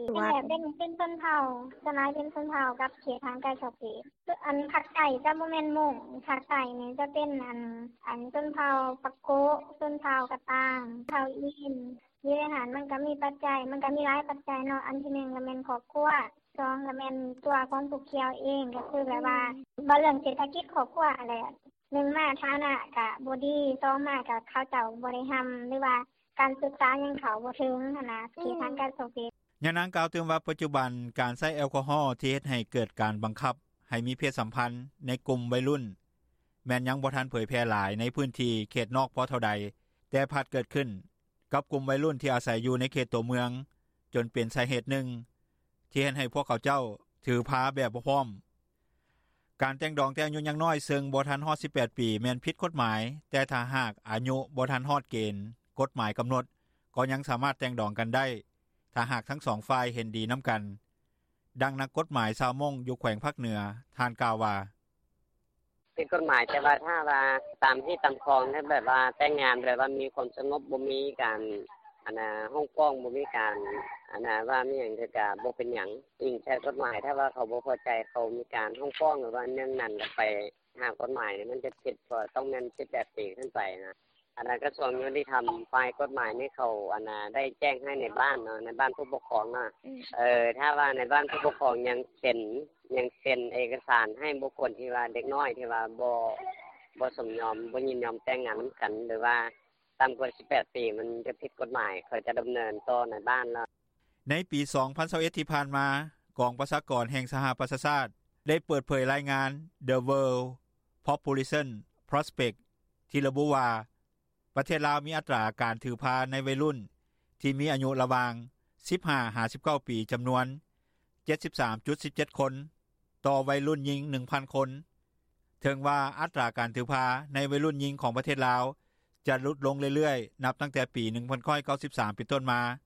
ເປັນ ເປັນຊົນເຜົ່າ ສ່ວນຫຼາຍເປັນຊົນເຜົ່າກັບເຂດຫ່າງໄກສອກຫຼີກ ອັນພາກໃຕ້ຈະບໍ່ແມ່ນມົ້ງ ພາກໃຕ້ນີ້ຈະເປັນອັນ ອັນຊົນເຜົ່າປາໂກະ ຊົນເຜົ່າກະຕ່າງ ເຜົ່າອີນ ຢູ່ໃນຫັ້ນມັນກະມີປັດໄຈ ມັນກະມີຫຼາຍປັດໄຈເນາະ ອັນທີໜຶ່ງກະແມ່ນຄອບຄົວ ສອງກະແມ່ນຕົວຂອງຜູ້ກ່ຽວເອງ ກະຄືແບບວ່າ ເວົ້າເລື່ອງເສດຖະກິດຄອບຄົວຫັ້ນແຫຼະ ໜຶ່ງມາຖານະກະບໍ່ດີ ສອງມາກະເຂົາເຈົ້າບໍ່ໄດ້ຮ່ຳ ຫຼືວ່າ ການສຶກສາຍັງເຂົ້າບໍ່ເຖິງຫັ້ນນະ ເຂດຫ່າງໄກສອກຫຼີກ. ຍານາງກ່າວຕື່ມວ່າ ປັດຈຸບັນການໃຊ້ແອລກໍຮໍທີ່ເຮັດໃຫ້ເກີດການບັງຄັບໃຫ້ມີເພດສຳພັນໃນກຸ່ມໄວລຸ້ນ ແມ່ນຍັງບໍ່ທັນເຜີຍແຜ່ຫຼາຍໃນພື້ນທີ່ເຂດນອກພໍເທົ່າໃດ ແຕ່ພັດເກີດຂຶ້ນກັບກຸ່ມໄວລຸ້ນທີ່ອາໄສຢູ່ໃນເຂດຕົວເມືອງ ຈົນເປັນສາເຫດໜຶ່ງທີ່ເຮັດໃຫ້ພວກເຂົາເຈົ້າຖືພາແບບບໍ່ພ້ອມ. ການແຕ່ງດອງແຕ່ອາຍຸຍັງນ້ອຍ ເຊິ່ງບໍ່ທັນຮອດ 18 ປີ ແມ່ນຜິດກົດໝາຍ ແຕ່ຖ້າຫາກອາຍຸບໍ່ທັນຮອດເກນກົດໝາຍກຳນົດ ກໍຍັງສາມາດແຕ່ງດອງກັນໄດ້ ຖ້າຫາກທັງສອງຝ່າຍເຫັນດີນຳກັນ. ດັ່ງນັກກົດໝາຍຊາວມົ້ງຢູ່ແຂວງພາກເໜືອ ທ່ານກ່າວວ່າ: “ຜິດກົດໝາຍ ແຕ່ວ່າຖ້າວ່າຕາມຮີດຕາມຄອງ ແບບວ່າແຕ່ງງານແບບວ່າມີຄວາມສະຫງົບ ບໍ່ມີການຮ້ອງຟ້ອງ ບໍ່ມີການວ່າມີຫຍັງ ກະບໍ່ເປັນຫຍັງ ອີງໃສ່ກົດໝາຍ ຖ້າວ່າເຂົາບໍ່ພໍໃຈ ເຂົາມີການຮ້ອງຟ້ອງ ຫຼືວ່າແນວນັ້ນ ໄປຫາກົດໝາຍ ມັນຈະຜິດ ຕ້ອງແມ່ນສິບແປດປີຂຶ້ນໄປຫັ້ນນ່າ. ອັນນັ້ນກະຊວງຍຸຕິທຳ ຝ່າຍກົດໝາຍນີ້ ເຂົາໄດ້ແຈ້ງໃຫ້ນາຍບ້ານເນາະ ນາຍບ້ານຜູ້ປົກຄອງເນາະ ຖ້າວ່ານາຍບ້ານຜູ້ປົກຄອງຍັງເຊັນເອກະສານ ໃຫ້ບຸກຄົນທີ່ວ່າເດັກນ້ອຍ ທີ່ວ່າບໍ່ສົມຍອມ ບໍ່ຍິນຍອມແຕ່ງງານນຳກັນ ຫຼືວ່າຕ່ຳກວ່າສິບແປດປີ ມັນຈະຜິດກົດໝາຍ ເຂົາຈະດຳເນີນຕໍ່ນາຍບ້ານ.” ໃນປີ ສອງພັນຊາວເອັດ ທີ່ຜ່ານມາ ກອງປະຊາກອນແຫ່ງສະຫະປະຊາຊາດ ໄດ້ເປີດເຜີຍລາຍງານ The World Population Prospect ທີ່ລະບຸວ່າ ປະເທດລາວມີອັດຕາການຖືພາໃນໄວລຸ້ນ ທີ່ມີອາຍຸລະຫວ່າງ ສິບຫ້າຫາສິບເກົ້າປີ ຈຳນວນ ເຈັດສິບສາມຈຸດສິບເຈັດຄົນ ຕໍ່ໄວລຸ້ນຍິງ ໜຶ່ງພັນຄົນ. ເຖິງວ່າອັດຕາການຖືພາໃນໄວລຸ້ນຍິງຂອງປະເທດລາວ ຈະຫຼຸດລົງເລື້ອຍໆ ນັບຕັ້ງແຕ່ປີ ໜຶ່ງພັນເກົ້າຮ້ອຍເກົ້າສິບສາມ ເປັນຕົ້ນມາ,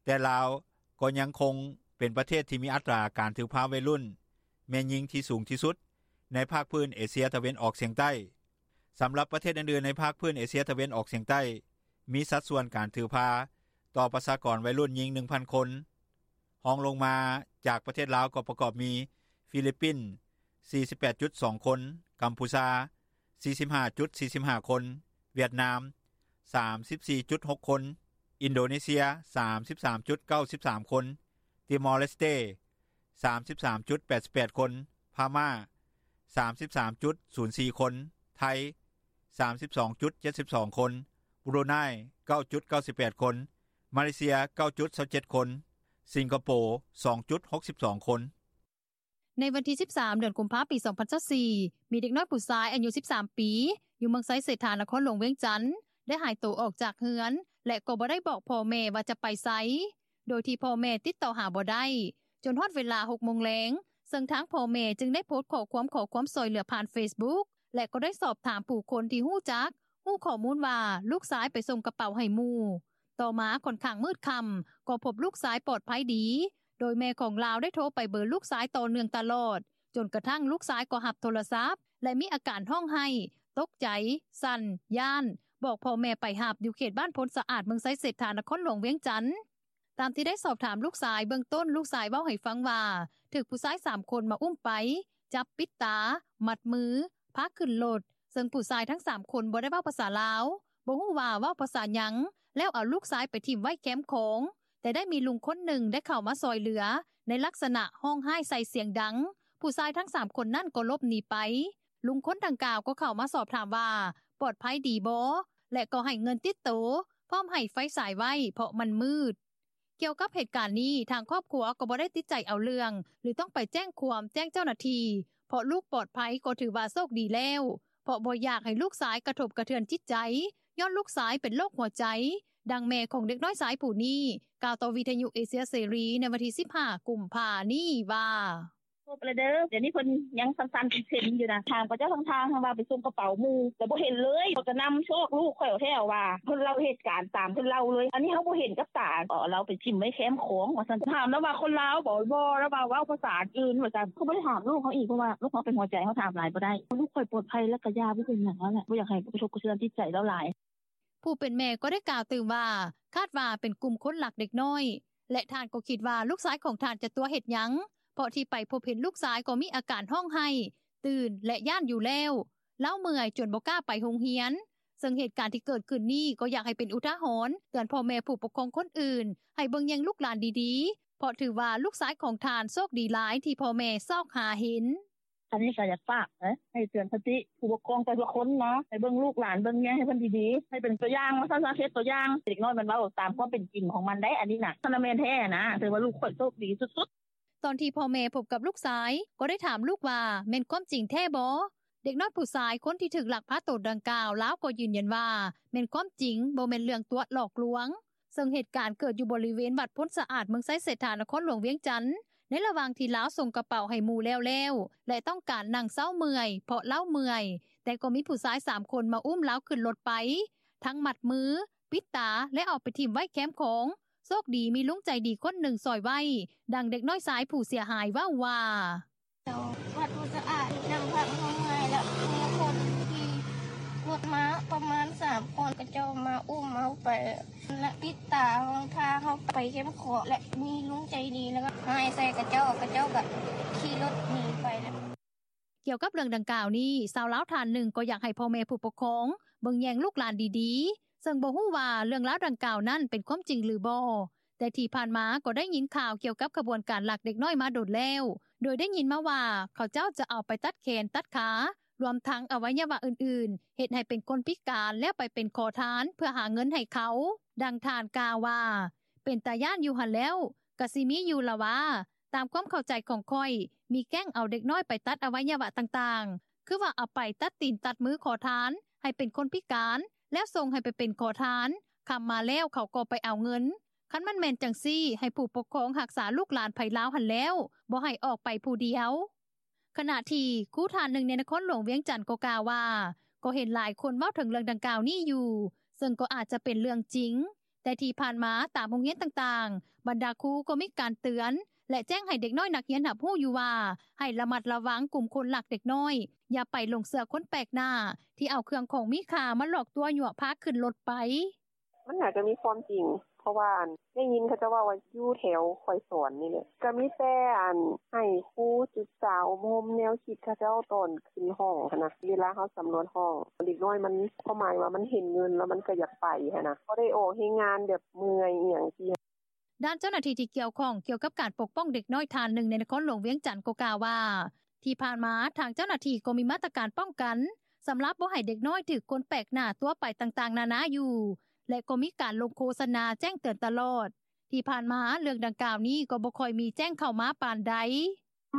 ແຕ່ລາວກໍຍັງຄົງເປັນປະເທດທີ່ມີອັດຕາການຖືພາໄວລຸ້ນແມ່ຍິງທີ່ສູງທີ່ສຸດໃນພາກພື້ນເອເຊຍຕາເວັນອອກສຽງໃຕ້. ສຳລັບປະເທດອື່ນໆໃນພາກພື້ນເອເຊຍຕາເວັນອອກສຽງໃຕ້ ມີສັດສ່ວນການຖືພາຕໍ່ປະຊາກອນໄວລຸ້ນຍິງ ໜຶ່ງພັນຄົນ. ຮອງລົງມາຈາກປະເທດລາວກໍປະກອບມີ ຟີລິບປິນ ສີ່ສິບແປດຈຸດສອງຄົນ, ກຳພູຊາ ສີ່ສິບຫ້າຈຸດສີ່ສິບຫ້າຄົນ, ຫວຽດນາມ ສາມສິບສີ່ຈຸດຫົກຄົນ, ອິນໂດເນເຊຍ ສາມສິບສາມຈຸດເກົ້າສິບສາມຄົນ, ຕີມໍເລສເຕ ສາມສິບສາມຈຸດແປດສິບແປດຄົນ, ພະມ້າ ສາມສິບສາມຈຸດສູນສີ່ຄົນ, ໄທ ສາມສິບສອງຈຸດເຈັດສິບສອງຄົນ, ບຣູໄນ ເກົ້າຈຸດເກົ້າສິບແປດຄົນ, ມາເລເຊຍ ເກົ້າຈຸດຊາວເຈັດຄົນ, ສິງກະໂປ ສອງຈຸດຫົກສິບສອງຄົນ. ໃນວັນທີ ສິບສາມ ເດືອນກຸມພາ ປີ ສອງພັນຊາວສີ່ ມີເດັກນ້ອຍຜູ້ຊາຍອາຍຸ ສິບສາມປີ ຢູ່ເມືອງໄຊເສດຖາ ນະຄອນຫຼວງວຽງຈັນ ໄດ້ຫາຍໂຕອອກຈາກເຮືອນ ແລະ ກໍບໍ່ໄດ້ບອກພໍ່ແມ່ວ່າຈະໄປໃສ ໂດຍທີ່ພໍ່ແມ່ຕິດຕໍ່ຫາບໍ່ໄດ້ ຈົນຮອດເວລາ ຫົກໂມງແລງ ເຊິ່ງທາງພໍ່ແມ່ຈຶ່ງໄດ້ໂພສຂໍ້ຄວາມຂໍຄວາມຊ່ອຍເຫຼືອຜ່ານເຟສບຸກ ແລະ ກໍໄດ້ສອບຖາມຜູ້ຄົນທີ່ຮູ້ຈັກ ຮູ້ຂໍ້ມູນວ່າລູກຊາຍໄປສົ່ງກະເປົາໃຫ້ໝູ່. ຕໍ່ມາຂ້ອນຂ້າງມືດຄ່ຳ ກໍພົບລູກຊາຍປອດໄພດີ ໂດຍແມ່ຂອງລາວໄດ້ໂທໄປເບີລູກຊາຍຕໍ່ເນື່ອງຕະຫຼອດ ຈົນກະທັ້ງລູກຊາຍກໍຮັບໂທລະສັບ ແລະ ມີອາການຮ້ອງໄຫ້, ຕົກໃຈ, ສັ່ນ, ຢ້ານ, ບອກພໍ່ແມ່ໄປຮັບ ຢູ່ເຂດບ້ານໂພນສະອາດ ເມືອງໄຊເສດຖາ ນະຄອນຫຼວງວຽງຈັນ. ຕາມທີ່ໄດ້ສອບຖາມລູກຊາຍ ເບື້ອງຕົ້ນລູກຊາຍເວົ້າໃຫ້ຟັງວ່າ ຖືກຜູ້ຊາຍສາມຄົນມາອຸ້ມໄປ, ຈັບປິດຕາ, ມັດມື, ພາຂຶ້ນລົດ ເຊິ່ງຜູ້ຊາຍທັງສາມຄົນບໍ່ໄດ້ເວົ້າພາສາລາວ, ບໍ່ຮູ້ວ່າເວົ້າພາສາຫຍັງ ແລ້ວເອົາລູກຊາຍໄປຖິ້ມໄວ້ແຄມຂອງ, ແຕ່ໄດ້ມີລຸງຄົນໜຶ່ງໄດ້ເຂົ້າມາຊ່ອຍເຫຼືອ ໃນລັກສະນະຮ້ອງໄຫ້ໃສ່ສຽງດັງ, ຜູ້ຊາຍທັງສາມຄົນນັ້ນກໍຫຼົບໜີໄປ. ລຸງຄົນດັ່ງກ່າວກໍເຂົ້າມາສອບຖາມວ່າ ປອດໄພດີບໍ່ ແລະ ກໍໃຫ້ເງິນຕິດໂຕ ພ້ອມໃຫ້ໄຟສາຍໄວ້ ເພາະມັນມືດ. ກ່ຽວກັບເຫດການນີ້ ທາງຄອບຄົວກໍບໍ່ໄດ້ຕິດໃຈເອົາເລື່ອງ ຫຼື ຕ້ອງໄປແຈ້ງຄວາມແຈ້ງເຈົ້າໜ້າທີ່ ເພາະລູກປອດໄພກໍຖືວ່າໂຊກດີແລ້ວ ເພາະບໍ່ຢາກໃຫ້ລູກຊາຍກະທົບກະເທືອນຈິດໃຈ ຍ້ອນລູກຊາຍເປັນໂລກຫົວໃຈ. ດັ່ງແມ່ຂອງເດັກນ້ອຍຊາຍຜູ້ນີ້ ກ່າວຕໍ່ວິທະຍຸເອເຊຍເສລີ ໃນວັນທີ ສິບຫ້າ ກຸມພາ ນີ້ວ່າ: “ພົບແລ້ວເດີ ດຽວນີ້ເພິ່ນຍັງສັ່ນໆເຊັນໆຢູ່ນະ ຖາມເຂົາເຈົ້າທາງທາງ ເຂົາວ່າໄປສົ່ງກະເປົາໝູ່ ແລ້ວບໍ່ເຫັນເລີຍ ເຂົາກະນຳຊອກລູກຂ້ອຍແທ້ວ່າ ເພິ່ນເລົ່າເຫດການຕາມເພິ່ນເລົ່າເລີຍ ອັນນີ້ເຮົາບໍ່ເຫັນກັບຕາ ເອົາລາວໄປຖິ້ມໄວ້ແຄມຂອງວ່າຊັ້ນ ຖາມລາວວ່າຄົນລາວບໍ ບໍ່ ລາວວ່າເວົ້າພາສາອື່ນວ່າຊັ້ນ ເຂົາບໍ່ໄດ້ຖາມລູກເຮົາອີກ ເພາະວ່າລູກເຮົາເປັນຫົວໃຈ ເຮົາຖາມຫຼາຍບໍ່ໄດ້ ລູກຂ້ອຍປອດໄພ ລະກະຢ່າໄປເຮັດຫຍັງລາວແຫຼະ ບໍ່ຢາກໃຫ້ກະທົບກະເທືອນຈິດໃຈລາວຫຼາຍ.” ຜູ້ເປັນແມ່ກໍໄດ້ກ່າວຕື່ມວ່າ ຄາດວ່າເປັນກຸ່ມຄົນລັກເດັກນ້ອຍ ແລະ ທ່ານກໍຄິດວ່າລູກຊາຍຂອງທ່ານຈະຕົວະເຮັດຫຍັງ ເພາະທີ່ໄປພົບເຫັນລູກຊາຍກໍມີອາການຮ້ອງໄຫ້, ຕື່ນ ແລະ ຢ້ານຢູ່ແລ້ວ, ລາວເມື່ອຍຈົນບໍ່ກ້າໄປໂຮງຮຽນ. ເຊິ່ງເຫດການທີ່ເກີດຂຶ້ນນີ້ ກໍຢາກໃຫ້ເປັນອຸທາຫອນເຕືອນພໍ່ແມ່ຜູ້ປົກຄອງຄົນອື່ນ ໃຫ້ເບິ່ງແຍງລູກຫຼານດີໆ ເພາະຖືວ່າລູກຊາຍຂອງທ່ານໂຊກດີຫຼາຍທີ່ພໍ່ແມ່ຊອກຫາເຫັນ. “ອັນນີ້ກະຢາກຝາກໃຫ້ເຕືອນສະຕິຜູ້ປົກຄອງແຕ່ລະຄົນເນາະ ໃຫ້ເບິ່ງລູກຫຼານເບິ່ງແຍງໃຫ້ເພິ່ນດີໆ ໃຫ້ເປັນຕົວຢ່າງວ່າຊັ້ນຊະ ເຮັດຕົວຢ່າງ ເດັກນ້ອຍມັນເວົ້າຕາມຄວາມເປັນຈິງຂອງມັນໄດ໋ ອັນນີ້ນະ ຄັນວ່າແມ່ນແທ້ນະ ຖືວ່າລູກຂ້ອຍໂຊກດີສຸດໆ.” ຕອນທີ່ພໍ່ແມ່ພົບກັບລູກຊາຍ ກໍໄດ້ຖາມລູກວ່າ ແມ່ນຄວາມຈິງແທ້ບໍ່? ເດັກນ້ອຍຜູ້ຊາຍຄົນທີ່ຖືກລັກພາໂຕດັ່ງກ່າວ ລາວກໍຢືນຢັນວ່າ ແມ່ນຄວາມຈິງ ບໍ່ແມ່ນເລື່ອງຕົວະຫຼອກລວງ. ເຊິ່ງເຫດການເກີດຢູ່ບໍລິເວນວັດໂພນສະອາດ ເມືອງໄຊເສດຖາ ນະຄອນຫຼວງວຽງຈັນ ໃນລະຫວ່າງທີ່ລາວສົ່ງກະເປົາໃຫ້ໝູ່ແລ້ວໆ ແລະ ຕ້ອງການນັ່ງເຊົາເມື່ອຍ ເພາະລາວເມື່ອຍ ແຕ່ກໍມີຜູ້ຊາຍສາມຄົນມາອຸ້ມລາວຂຶ້ນລົດໄປ ທັງມັດມື ປິດຕາ ແລະ ເອົາໄປຖິ້ມໄວ້ແຄມຂອງ. ໂຊກດີມີລຸງໃຈດີຄົນໜຶ່ງຊ່ອຍໄວ້, ດັ່ງເດັກນ້ອຍຊາຍຜູ້ເສຍຫາຍເວົ້າວ່າ: ເຈົ້າ ວັດບໍ່ສະອາດ ນັ່ງພັກເຮົາເມື່ອຍ ແລ້ວມີຄົນຂີ່ລົດມາປະມານສາມຄົນ ເຂົາເຈົ້າມາອຸ້ມເຮົາໄປ ແລະ ປິດຕາເຮົາ ພາເຮົາໄປແຄມຂອງ ແລະ ມີລຸງໃຈດີ ແລ້ວກໍຮ້າຍໃສ່ເຂົາເຈົ້າ ເຂົາເຈົ້າກໍຂີ່ລົດໜີໄປແລ້ວ. ກ່ຽວກັບເລື່ອງດັ່ງກ່າວນີ້ ຊາວລາວທ່ານໜຶ່ງກໍຢາກໃຫ້ພໍ່ແມ່ຜູ້ປົກຄອງເບິ່ງແຍງລູກຫຼານດີໆ ເຊິ່ງບໍ່ຮູ້ວ່າເລື່ອງລາວດັ່ງກ່າວນັ້ນເປັນຄວາມຈິງຫຼືບໍ່, ແຕ່ທີ່ຜ່ານມາກໍໄດ້ຍິນຂ່າວກ່ຽວກັບຂະບວນການລັກເດັກນ້ອຍມາດົນແລ້ວ, ໂດຍໄດ້ຍິນມາວ່າເຂົາເຈົ້າຈະເອົາໄປຕັດແຂນຕັດຂາ, ລວມທັງອະໄວຍະວະອື່ນໆ, ເຮັດໃຫ້ເປັນຄົນພິການ ແລ້ວໄປເປັນຂໍທານເພື່ອຫາເງິນໃຫ້ເຂົາ. ດັ່ງທ່ານກ່າວວ່າ, ເປັນຕາຢ້ານຢູ່ຫັ້ນແລ້ວ, ກະຊິມີຢູ່ລະວ່າ. ຕາມຄວາມເຂົ້າໃຈຂອງຂ້ອຍ, ມີແກ້ງເອົາເດັກນ້ອຍໄປຕັດອະໄວຍະວະຕ່າງໆ, ຄືວ່າເອົາໄປຕັດຕີນຕັດມືຂໍທານ ໃຫ້ເປັນຄົນພິການ ແລ້ວສົ່ງໃຫ້ໄປເປັນຂໍທານ, ຄ່ຳມາແລ້ວເຂົາກໍໄປເອົາເງິນ. ຄັນມັນແມ່ນຈັ່ງຊີ້, ໃຫ້ຜູ້ປົກຄອງຮັກສາລູກຫຼານໃຜລາວຫັ້ນແລ້ວ, ບໍ່ໃຫ້ອອກໄປຜູ້ດຽວ. ຂະນະທີ່ຄູທ່ານໜຶ່ງໃນນະຄອນຫຼວງວຽງຈັນກໍກ່າວວ່າ, ກໍເຫັນຫຼາຍຄົນເວົ້າເຖິງເລື່ອງດັ່ງກ່າວນີ້ຢູ່, ເຊິ່ງກໍອາດຈະເປັນເລື່ອງຈິງ. ແຕ່ທີ່ຜ່ານມາຕາມໂຮງຮຽນຕ່າງໆ, ບັນດາຄູກໍມີການເຕືອນ ແລະ ແຈ້ງໃຫ້ເດັກນ້ອຍນັກຮຽນຮັບຮູ້ຢູ່ວ່າ ໃຫ້ລະມັດລະວັງກຸ່ມຄົນລັກເດັກນ້ອຍ, ຢ່າໄປຫຼົງເຊື່ອຄົນແປກໜ້າທີ່ເອົາເຄື່ອງຂອງມີຄ່າມາຫຼອກຕົວະຍົວະພາຂຶ້ນລົດໄປ. ມັນໜ້າຈະມີຄວາມຈິງ ເພາະວ່າໄດ້ຍິນເຂົາເຈົ້າເວົ້າວ່າ ຢູ່ແຖວຂ້ອຍສອນນີ້ແຫຼະ ກໍມີແຕ່ອັນໃຫ້ຄູສຶກສາອົບຮົມແນວຄິດເຂົາເຈົ້າຕອນຂຶ້ນຫ້ອງຫັ້ນນະ ເວລາເຮົາສຳຫຼວດຫ້ອງ ເດັກນ້ອຍມັນ ຄວາມໝາຍວ່າມັນເຫັນເງິນແລ້ວມັນກໍຢາກໄປຫັ້ນນະ ບໍ່ໄດ້ອອກແຮງງານແບບເມື່ອຍອີ່ຫຍັງຊີ້. ດ້ານເຈົ້າໜ້າທີ່ທີ່ກ່ຽວຂ້ອງກ່ຽວກັບການປົກປ້ອງເດັກນ້ອຍທ່ານໜຶ່ງໃນນະຄອນຫຼວງວຽງຈັນກໍກ່າວວ່າ ທີ່ຜ່ານມາທາງເຈົ້າໜ້າທີ່ກໍມີມາດຕະການປ້ອງກັນ ສຳລັບບໍ່ໃຫ້ເດັກນ້ອຍຖືກຄົນແປກໜ້າຕົວະໄປຕ່າງໆນານາຢູ່ ແລະ ກໍມີການລົງໂຄສະນາແຈ້ງເຕືອນຕະຫຼອດ. ທີ່ຜ່ານມາເລື່ອງດັ່ງກ່າວນີ້ກໍບໍ່ຄ່ອຍມີແຈ້ງເຂົ້າມາປານໃດ.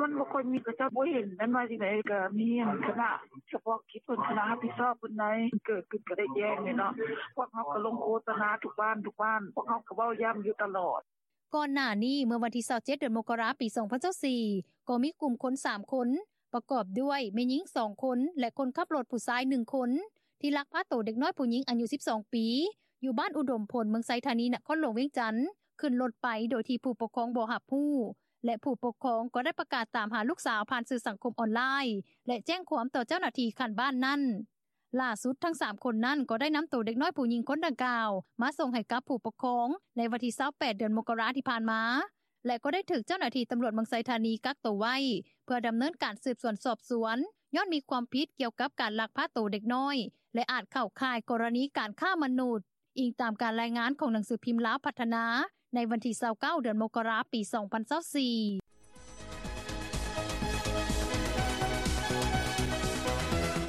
ມັນບໍ່ຄ່ອຍມີ ເຂົາເຈົ້າບໍ່ເຫັນ ແມ່ນວ່າຈັ່ງໃດ ກໍມີຄະນະສະເພາະກິດເພິ່ນ ຄະນະຮັບຜິດຊອບເພິ່ນໃດ ເກີດຂຶ້ນກໍໄດ້ແຈ້ງແຫຼະເນາະ ພວກເຮົາກໍລົງໂຄສະນາທຸກບ້ານທຸກບ້ານ ພວກເຮົາກໍເວົ້າຢ້ຳຢູ່ຕະຫຼອດ. ກ່ອນໜ້ານີ້ ເມື່ອວັນທີຊາວເຈັດ ເດືອນມົກກະລາ ປີສອງພັນຊາວສີ່ ກໍມີກຸ່ມຄົນສາມຄົນ ປະກອບດ້ວຍແມ່ຍິງສອງຄົນ ແລະ ຄົນຂັບລົດຜູ້ຊາຍໜຶ່ງຄົນ ທີ່ລັກພາໂຕເດັກນ້ອຍຜູ້ຍິງອາຍຸສິບສອງປີ ຢູ່ບ້ານອຸດົມພົນ ເມືອງໄຊທານີ ນະຄອນຫຼວງວຽງຈັນ ຂຶ້ນລົດໄປໂດຍທີ່ຜູ້ປົກຄອງບໍ່ຮັບຮູ້ ແລະ ຜູ້ປົກຄອງກໍໄດ້ປະກາດຕາມຫາລູກສາວຜ່ານສື່ສັງຄົມອອນລາຍ ແລະ ແຈ້ງຄວາມຕໍ່ເຈົ້າໜ້າທີ່ຂັ້ນບ້ານນັ້ນ. ຫຼ້າສຸດທັງສາມຄົນນັ້ນກໍໄດ້ນຳໂຕເດັກນ້ອຍຜູ້ຍິງຄົນດັ່ງກ່າວມາສົ່ງໃຫ້ກັບຜູ້ປົກຄອງໃນວັນທີຊາວແປດ ເດືອນມົກກະລາທີ່ຜ່ານມາ ແລະ ກໍໄດ້ຖືກເຈົ້າໜ້າທີ່ຕຳຫຼວດເມືອງໄຊທານີກັກໂຕໄວ້ ເພື່ອດຳເນີນການສືບສວນສອບສວນ ຍ້ອນມີຄວາມຜິດກ່ຽວກັບການລັກພາໂຕເດັກນ້ອຍ ແລະ ອາດເຂົ້າຂ່າຍກໍລະນີການຄ້າມະນຸດ. ອີງຕາມການລາຍງານຂອງໜັງສືພິມລາວພັດທະນາ ໃນວັນທີຊາວເກົ້າ ເດືອນມົກກະລາ ປີສອງພັນຊາວສີ່.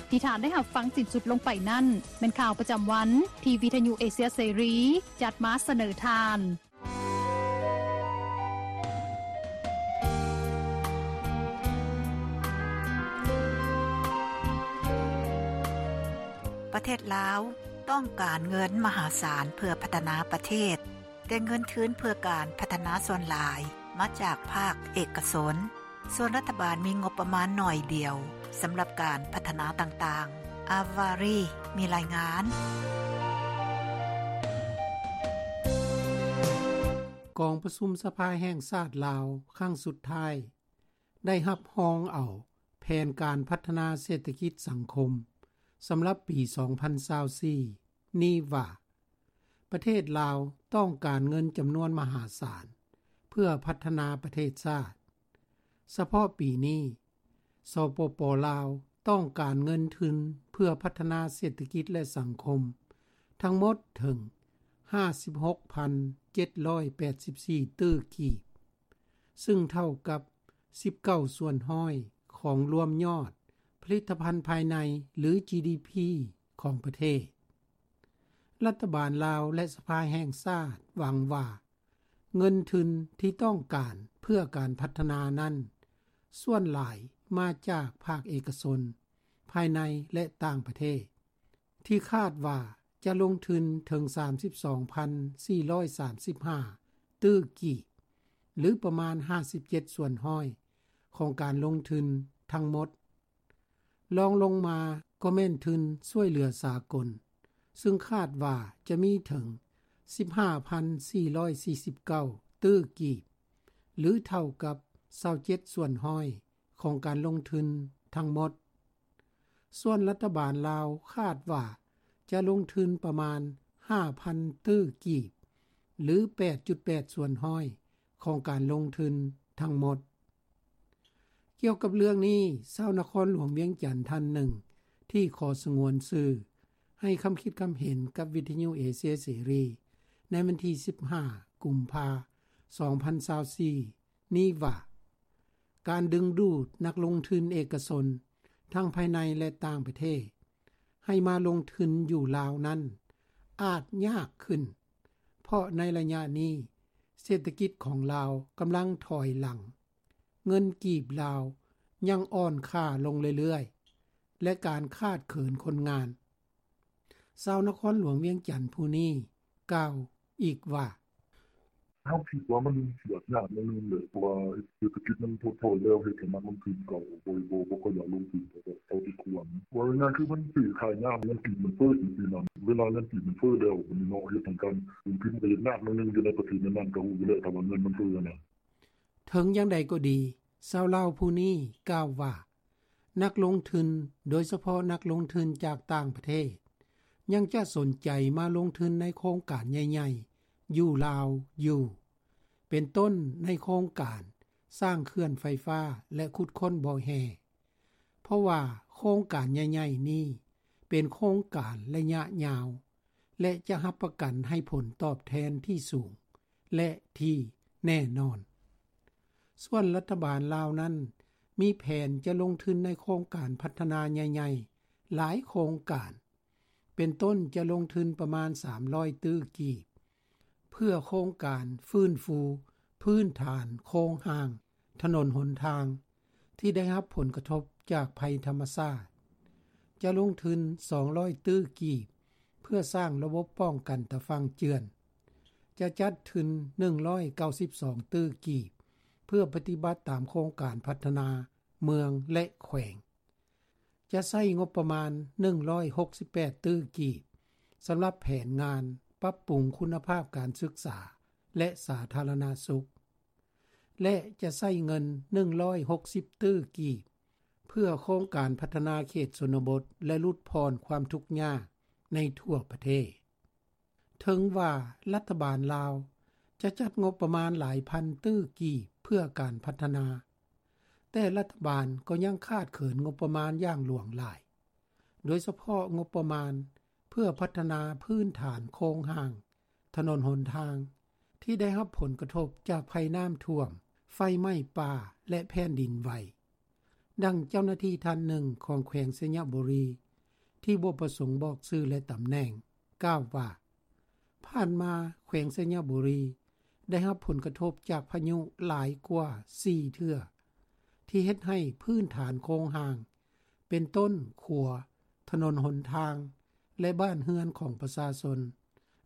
ທີ່ທ່ານໄດ້ຮັບຟັງສິ້ນສຸດລົງໄປນັ້ນ ແມ່ນຂ່າວປະຈຳວັນ ທີ່ວິທະຍຸເອເຊຍເສລີ ຈັດມາສະເໜີທ່ານ. ປະເທດລາວຕ້ອງການເງິນມະຫາສານເພື່ອພັດທະນາປະເທດ, ແຕ່ເງິນທຶນເພື່ອການພັດທະນາສ່ວນຫຼາຍມາຈາກພາກເອກະຊົນ, ສ່ວນລັດຖະບານມີງົບປະມານໜ້ອຍດຽວສຳລັບການພັດທະນາຕ່າງໆ. ອາວາຣີ ມີລາຍງານ. ກອງປະຊຸມສະພາແຫ່ງຊາດລາວຄັ້ງສຸດທ້າຍ ໄດ້ຮັບຮອງເອົາແຜນການພັດທະນາເສດຖະກິດສັງຄົມສຳລັບປີສອງພັນຊາວສີ່ນີ້ວ່າ ປະເທດລາວຕ້ອງການເງິນຈຳນວນມະຫາສານເພື່ອພັດທະນາປະເທດຊາດ. ສະເພາະປີນີ້ ສປປ ລາວ ຕ້ອງການເງິນທຶນເພື່ອພັດທະນາເສດຖະກິດ ແລະ ສັງຄົມ ທັງໝົດເຖິງຫ້າສິບຫົກພັນເຈັດຮ້ອຍແປດສິບສີ່ຕື້ກີບ, ຊຶ່ງເທົ່າກັບສິບເກົ້າສ່ວນຮ້ອຍຂອງລວມຍອດຜະລິດຕະພັນພາຍໃນ ຫຼື ຈີດີພີ ຂອງປະເທດ. ລັດຖະບານລາວ ແລະ ສະພາແຫ່ງຊາດຫວັງວ່າ ເງິນທຶນທີ່ຕ້ອງການເພື່ອການພັດທະນານັ້ນ ສ່ວນຫຼາຍມາຈາກພາກເອກະຊົນ ພາຍໃນ ແລະ ຕ່າງປະເທດ ທີ່ຄາດວ່າຈະລົງທຶນເຖິງສາມສິບສອງພັນສີ່ຮ້ອຍສາມສິບຫ້າຕື້ກີບ ຫຼື ປະມານຫ້າສິບເຈັດສ່ວນຮ້ອຍຂອງການລົງທຶນທັງໝົດ. ລອງລົງມາກໍແມ່ນທຶນຊ່ວຍເຫຼືອສາກົນ ຊຶ່ງຄາດວ່າຈະມີເຖິງ ສິບຫ້າພັນສີ່ຮ້ອຍສີ່ສິບເກົ້າຕື້ກີບ ຫຼື ເທົ່າກັບ ຊາວເຈັດສ່ວນຮ້ອຍຂອງການລົງທຶນທັງໝົດ. ສ່ວນລັດຖະບານລາວຄາດວ່າຈະລົງທຶນປະມານ ຫ້າພັນຕື້ກີບ ຫຼື ແປດຈຸດແປດສ່ວນຮ້ອຍຂອງການລົງທຶນທັງໝົດ. ກ່ຽວກັບເລື່ອງນີ້, ຊາວນະຄອນຫຼວງວຽງຈັນທ່ານໜຶ່ງທີ່ຂໍສະຫງວນຊື່ ໃຫ້ຄຳຄິດຄຳເຫັນກັບວິທະຍຸເອເຊຍເສລີໃນວັນທີ ສິບຫ້າ ກຸມພາ ສອງພັນຊາວສີ່ ນີ້ວ່າ ການດຶງດູດນັກລົງທຶນເອກະຊົນ ທັງພາຍໃນ ແລະ ຕ່າງປະເທດ ໃຫ້ມາລົງທຶນຢູ່ລາວນັ້ນ ອາດຍາກຂຶ້ນ ເພາະໃນໄລຍະນີ້ ເສດຖະກິດຂອງລາວກຳລັງຖອຍຫຼັງ, ເງິນກີບລາວຍັງອ່ອນຄ່າລົງເລື້ອຍໆ ແລະ ການຂາດເຂີນຄົນງານ. ຊາວນະຄອນຫຼວງວຽງຈັນຜູ້ນີ້ກ່າວອີກວ່າ: ເຮົາຄິດວ່າມັນຊິອາດຍາກໜ້ອຍໜຶ່ງແຫຼະ ເພາະວ່າເສດຖະກິດມັນຖົດຖອຍແລ້ວ ເຮັດໃຫ້ນັກລົງທຶນເຂົາບໍ່ ບໍ່ ບໍ່ຄ່ອຍຢາກລົງທຶນເທົ່າທີ່ຄວນ. ເວົ້າງ່າຍໆ ຄືມັນຊື້ຂາຍຍາກ, ເງິນກີບມັນເຟີ້ຈັ່ງຊີ້ນະ. ເວລາເງິນກີບມັນເຟີ້ແລ້ວ ບັດນີ້ເນາະ ເຮັດໃຫ້ການລົງທຶນມັນກໍເຮັດຍາກໜ້ອຍໜຶ່ງ. ຢູ່ໃນປະເທດແນວນັ້ນກໍຮູ້ຢູ່ແລ້ວ ຖ້າວ່າເງິນມັນເຟີ້ນະ. ເຖິງຢ່າງໃດກໍດີ, ຊາວລາວຜູ້ນີ້ກ່າວວ່າ ນັກລົງທຶນ, ໂດຍສະເພາະນັກລົງທຶນຈາກຕ່າງປະເທດ, ຍັງຈະສົນໃຈມາລົງທຶນໃນໂຄງການໃຫຍ່ໆຢູ່ລາວຢູ່, ເປັນຕົ້ນໃນໂຄງການສ້າງເຂື່ອນໄຟຟ້າ ແລະ ຂຸດຄົ້ນບໍ່ແຮ່, ເພາະວ່າໂຄງການໃຫຍ່ໆນີ້ເປັນໂຄງການໄລຍະຍາວ ແລະ ຈະຮັບປະກັນໃຫ້ຜົນຕອບແທນທີ່ສູງ ແລະ ທີ່ແນ່ນອນ. ສ່ວນລັດຖະບານລາວນັ້ນ ມີແຜນຈະລົງທຶນໃນໂຄງການພັດທະນາໃຫຍ່ໆຫຼາຍໂຄງການ, ເປັນຕົ້ນຈະລົງທຶນປະມານ ສາມຮ້ອຍຕື້ກີບ ເພື່ອໂຄງການຟື້ນຟູພື້ນຖານໂຄງຮ່າງ ຖະໜົນຫົນທາງທີ່ໄດ້ຮັບຜົນກະທົບຈາກໄພທຳມະຊາດ, ຈະລົງທຶນ ສອງຮ້ອຍຕື້ກີບ ເພື່ອສ້າງລະບົບປ້ອງກັນຕາຝັ່ງເຈື່ອນ, ຈະຈັດທຶນ ໜຶ່ງຮ້ອຍເກົ້າສິບສອງຕື້ກີບ ເພື່ອປະຕິບັດຕາມໂຄງການພັດທະນາເມືອງ ແລະ ແຂວງ, ຈະໃຊ້ງົບປະມານ ໜຶ່ງຮ້ອຍຫົກສິບແປດຕື້ກີບ ສຳລັບແຜນງານປັບປຸງຄຸນນະພາບການສຶກສາ ແລະ ສາທາລະນະສຸກ ແລະ ຈະໃຊ້ເງິນ ໜຶ່ງຮ້ອຍຫົກສິບຕື້ກີບ ເພື່ອໂຄງການພັດທະນາເຂດຊົນນະບົດ ແລະ ຫຼຸດຜ່ອນຄວາມທຸກຍາກໃນທົ່ວປະເທດ. ເຖິງວ່າລັດຖະບານລາວຈະຈັດງົບປະມານຫຼາຍພັນຕື້ກີບເພື່ອການພັດທະນາ, ແຕ່ລັດຖະບານກໍຍັງຂາດເຂີນງົບປະມານຢ່າງຫຼວງຫຼາຍ, ໂດຍສະເພາະງົບປະມານເພື່ອພັດທະນາພື້ນຖານໂຄງຮ່າງ ຖະໜົນຫົນທາງ ທີ່ໄດ້ຮັບຜົນກະທົບຈາກໄພນ້ຳຖ້ວມ, ໄຟໄໝ້ປ່າ ແລະ ແຜ່ນດິນໄຫວ. ດັ່ງເຈົ້າໜ້າທີ່ທ່ານໜຶ່ງຂອງແຂວງໄຊຍະບູລີ ທີ່ບໍ່ປະສົງບອກຊື່ ແລະ ຕຳແໜ່ງ ກ່າວວ່າ ຜ່ານມາແຂວງໄຊຍະບູລີໄດ້ຮັບຜົນກະທົບຈາກພາຍຸຫຼາຍກວ່າສີ່ເທື່ອ ທີ່ເຮັດໃຫ້ພື້ນຖານໂຄງຮ່າງ ເປັນຕົ້ນຂົວ, ຖະໜົນຫົນທາງ ແລະ ບ້ານເຮືອນຂອງປະຊາຊົນ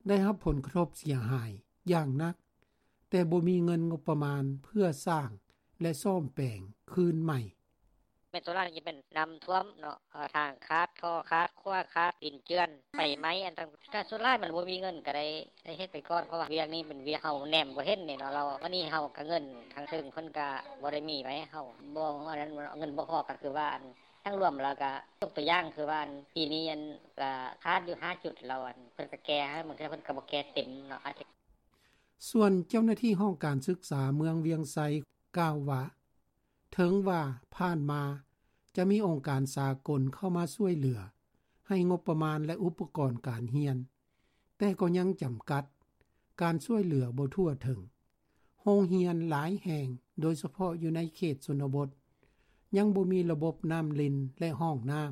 ໄດ້ຮັບຜົນກະທົບເສຍຫາຍຢ່າງໜັກ, ແຕ່ບໍ່ມີເງິນງົບປະມານເພື່ອສ້າງ ແລະ ສ້ອມແປງຄືນໃໝ່. ແມ່ນສ່ວນຫຼາຍຈະເປັນນ້ຳຖ້ວມເນາະ, ເອີ ທາງຂາດ, ທໍ່ຂາດ, ຂົວຂາດ, ດິນເຈື່ອນ, ໄຟໄໝ້, ອັນຕ່າງ. ກະສ່ວນຫຼາຍມັນບໍ່ມີເງິນກະໄດ້ ໄດ້ເຮັດໄປກ່ອນ, ເພາະວ່າວຽກນີ້ເປັນວຽກເຮົາແນມບໍ່ເຫັນນີ້ເນາະ, ລາວ ບາດນີ້ເຮົາກະເງິນທາງເທິງເພິ່ນກະບໍ່ໄດ້ມີໃຫ້ເຮົາ, ບໍ່ ອັນນັ້ນ ເງິນບໍ່ພໍ, ກະຄືວ່າ ອັນ ທັງລວມແລ້ວກະ ຍົກຕົວຢ່າງຄືວ່າ ອັນ ປີນີ້ ອັນ ກະຂາດຢູ່ຫ້າຈຸດ ແລ້ວ ອັນ ເພິ່ນກະແກ້ໃຫ້, ບາງເທື່ອເພິ່ນກະບໍ່ແກ້ເຕັມເນາະ. ສ່ວນເຈົ້າໜ້າທີ່ຫ້ອງການສຶກສາເມືອງວຽງໄຊກ່າວວ່າ ເຖິງວ່າຜ່ານມາຈະມີອົງການສາກົນເຂົ້າມາຊ່ວຍເຫຼືອໃຫ້ງົບປະມານ ແລະ ອຸປະກອນການຮຽນ, ແຕ່ກໍຍັງຈຳກັດ, ການຊ່ວຍເຫຼືອບໍ່ທົ່ວເຖິງ. ໂຮງຮຽນຫຼາຍແຫ່ງ, ໂດຍສະເພາະຢູ່ໃນເຂດຊົນນະບົດ, ຍັງບໍ່ມີລະບົບນ້ຳລິນ ແລະ ຫ້ອງນ້ຳ,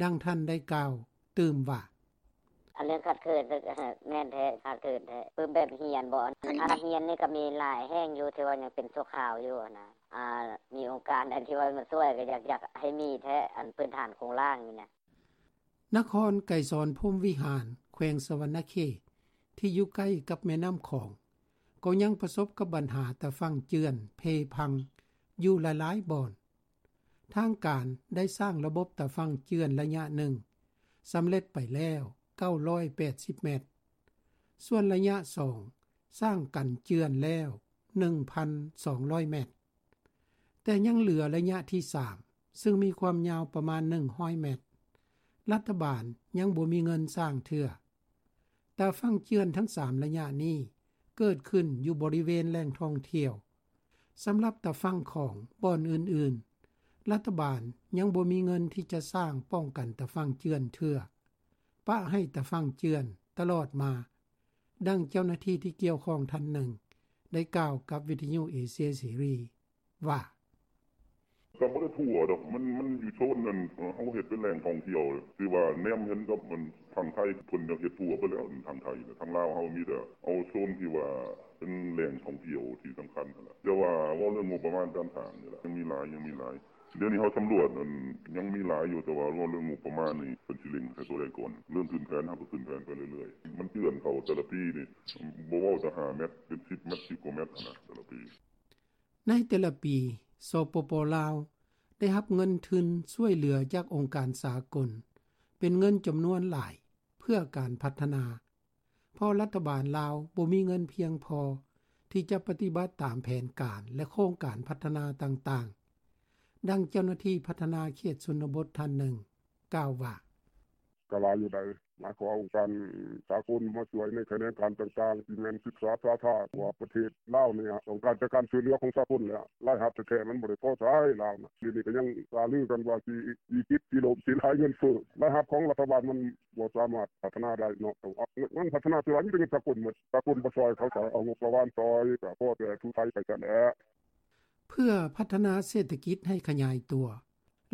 ດັ່ງທ່ານໄດ້ກ່າວຕື່ມວ່າ: ອັນເລື່ອງຂາດເຂີນ ແມ່ນແທ້, ຂາດເຂີນແທ້. ປຶ້ມແບບຮຽນບໍ? ອັນຮຽນນີ້ກໍມີຫຼາຍແຫ່ງຢູ່ ທີ່ວ່າຍັງເປັນຊົ່ວຄາວຢູ່ຫັ້ນນະ. ອາ ມີອົງການໃດທີ່ວ່າມາຊ່ວຍ ກໍຢາກ ຢາກໃຫ້ມີແທ້, ອັນພື້ນຖານໂຄງລ່າງນີ້ນະ. ນະຄອນໄກສອນພົມວິຫານ ແຂວງສະຫວັນນະເຂດ ທີ່ຢູ່ໃກ້ກັບແມ່ນ້ຳຂອງ ກໍຍັງປະສົບກັບບັນຫາຕາຝັ່ງເຈື່ອນເພພັງຢູ່ຫຼາຍໆບ່ອນ. ທາງການໄດ້ສ້າງລະບົບຕາຝັ່ງເຈື່ອນໄລຍະໜຶ່ງສຳເລັດໄປແລ້ວ, ເກົ້າຮ້ອຍແປດສິບແມັດ, ສ່ວນໄລຍະສອງສ້າງກັນເຈື່ອນແລ້ວໜຶ່ງພັນສອງຮ້ອຍແມັດ, ແຕ່ຍັງເຫຼືອໄລຍະທີສາມ ຊຶ່ງມີຄວາມຍາວປະມານໜຶ່ງຮ້ອຍແມັດ, ລັດຖະບານຍັງບໍ່ມີເງິນສ້າງເທື່ອ. ຕາຝັ່ງເຈື່ອນທັງສາມໄລຍະນີ້ເກີດຂຶ້ນຢູ່ບໍລິເວນແຫຼ່ງທ່ອງທ່ຽວ. ສຳລັບຕາຝັ່ງຂອງບ່ອນອື່ນໆ, ລັດຖະບານຍັງບໍ່ມີເງິນທີ່ຈະສ້າງປ້ອງກັນຕາຝັ່ງເຈື່ອນເທື່ອ, ປະໃຫ້ຕາຝັ່ງເຈື່ອນຕະຫຼອດມາ, ດັ່ງເຈົ້າໜ້າທີ່ທີ່ກ່ຽວຂ້ອງທ່ານໜຶ່ງໄດ້ກ່າວກັບວິທະຍຸເອເຊຍເສລີວ່າ: ກໍບໍ່ໄດ້ທົ່ວດອກ, ມັນ ມັນຢູ່ໂຊນນັ້ນ ເຮົາເຮັດເປັນແຫຼ່ງທ່ອງທ່ຽວ ທີ່ວ່າແນມເຫັນກັບ ອັນ ທາງໄທ ເພິ່ນຢາກເຮັດທົ່ວໄປແລ້ວ ທາງໄທນະ. ທາງລາວເຮົາມີແຕ່ເອົາໂຊນທີ່ວ່າເປັນແຫຼ່ງທ່ອງທ່ຽວທີ່ສຳຄັນຫັ້ນລະ. ແຕ່ວ່າເວົ້າເລື່ອງງົບປະມານການສ້າງນີ້ລະ ຍັງມີຫຼາຍ ຍັງມີຫຼາຍ. ດຽວນີ້ເຮົາສຳຫຼວດ ອັນ ຍັງມີຫຼາຍຢູ່, ແຕ່ວ່າເວົ້າເລື່ອງງົບປະມານນີ້ ເພິ່ນຊິເລັ່ງໃສ່ໂຕໃດກ່ອນ. ເລີ່ມຂຶ້ນແຜນ ເຮົາກໍຂຶ້ນແຜນໄປເລື້ອຍໆ. ມັນເຈື່ອນເຂົ້າແຕ່ລະປີນີ້ ບໍ່ເວົ້າແຕ່ຫ້າແມັດ ເປັນສິບແມັດ ສິບກວ່າແມັດຫັ້ນນະ ແຕ່ລະປີ. ໃນແຕ່ລະປີ ສປປ ລາວ ໄດ້ຮັບເງິນທຶນຊ່ວຍເຫຼືອຈາກອົງການສາກົນ ເປັນເງິນຈຳນວນຫຼາຍເພື່ອການພັດທະນາ, ເພາະລັດຖະບານລາວບໍ່ມີເງິນພຽງພໍທີ່ຈະປະຕິບັດຕາມແຜນການ ແລະ ໂຄງການພັດທະນາຕ່າງໆ, ດັ່ງເຈົ້າໜ້າທີ່ພັດທະນາເຂດຊົນນະບົດທ່ານໜຶ່ງ ກ່າວວ່າ: ກໍຫຼາຍຢູ່ໃດ໋ ມາຂໍອົງການສາກົນມາຊ່ວຍໃນຂະແໜງການຕ່າງໆ ທີ່ແມ່ນສຶກສາສາທາ ເພາະວ່າປະເທດລາວນີ້ຕ້ອງການແຕ່ການຊ່ວຍເຫຼືອຂອງສາກົນແຫຼະ, ລາຍຮັບແທ້ໆມັນບໍ່ໄດ້ພໍໃຊ້ລາວນະ. ດຽວນີ້ກໍຍັງຫາລືກັນວ່າຊິວິກິດ ຊິລົ້ມ ຊິຫຼາຍເງິນເຟີ້, ລາຍຮັບຂອງລັດຖະບານມັນບໍ່ສາມາດພັດທະນາໄດ້ເນາະ. ເງິນພັດທະນາສ່ວນຫຼາຍມີແຕ່ເງິນສາກົນໝົດ, ສາກົນບໍ່ຊ່ອຍ ເຂົາກໍເອົາງົບປະມານຊ່ອຍ ກໍພໍແຕ່ຖູໄຖໄປຊັ້ນແຫຼະ. ເພື່ອພັດທະນາເສດຖະກິດໃຫ້ຂະຫຍາຍຕົວ,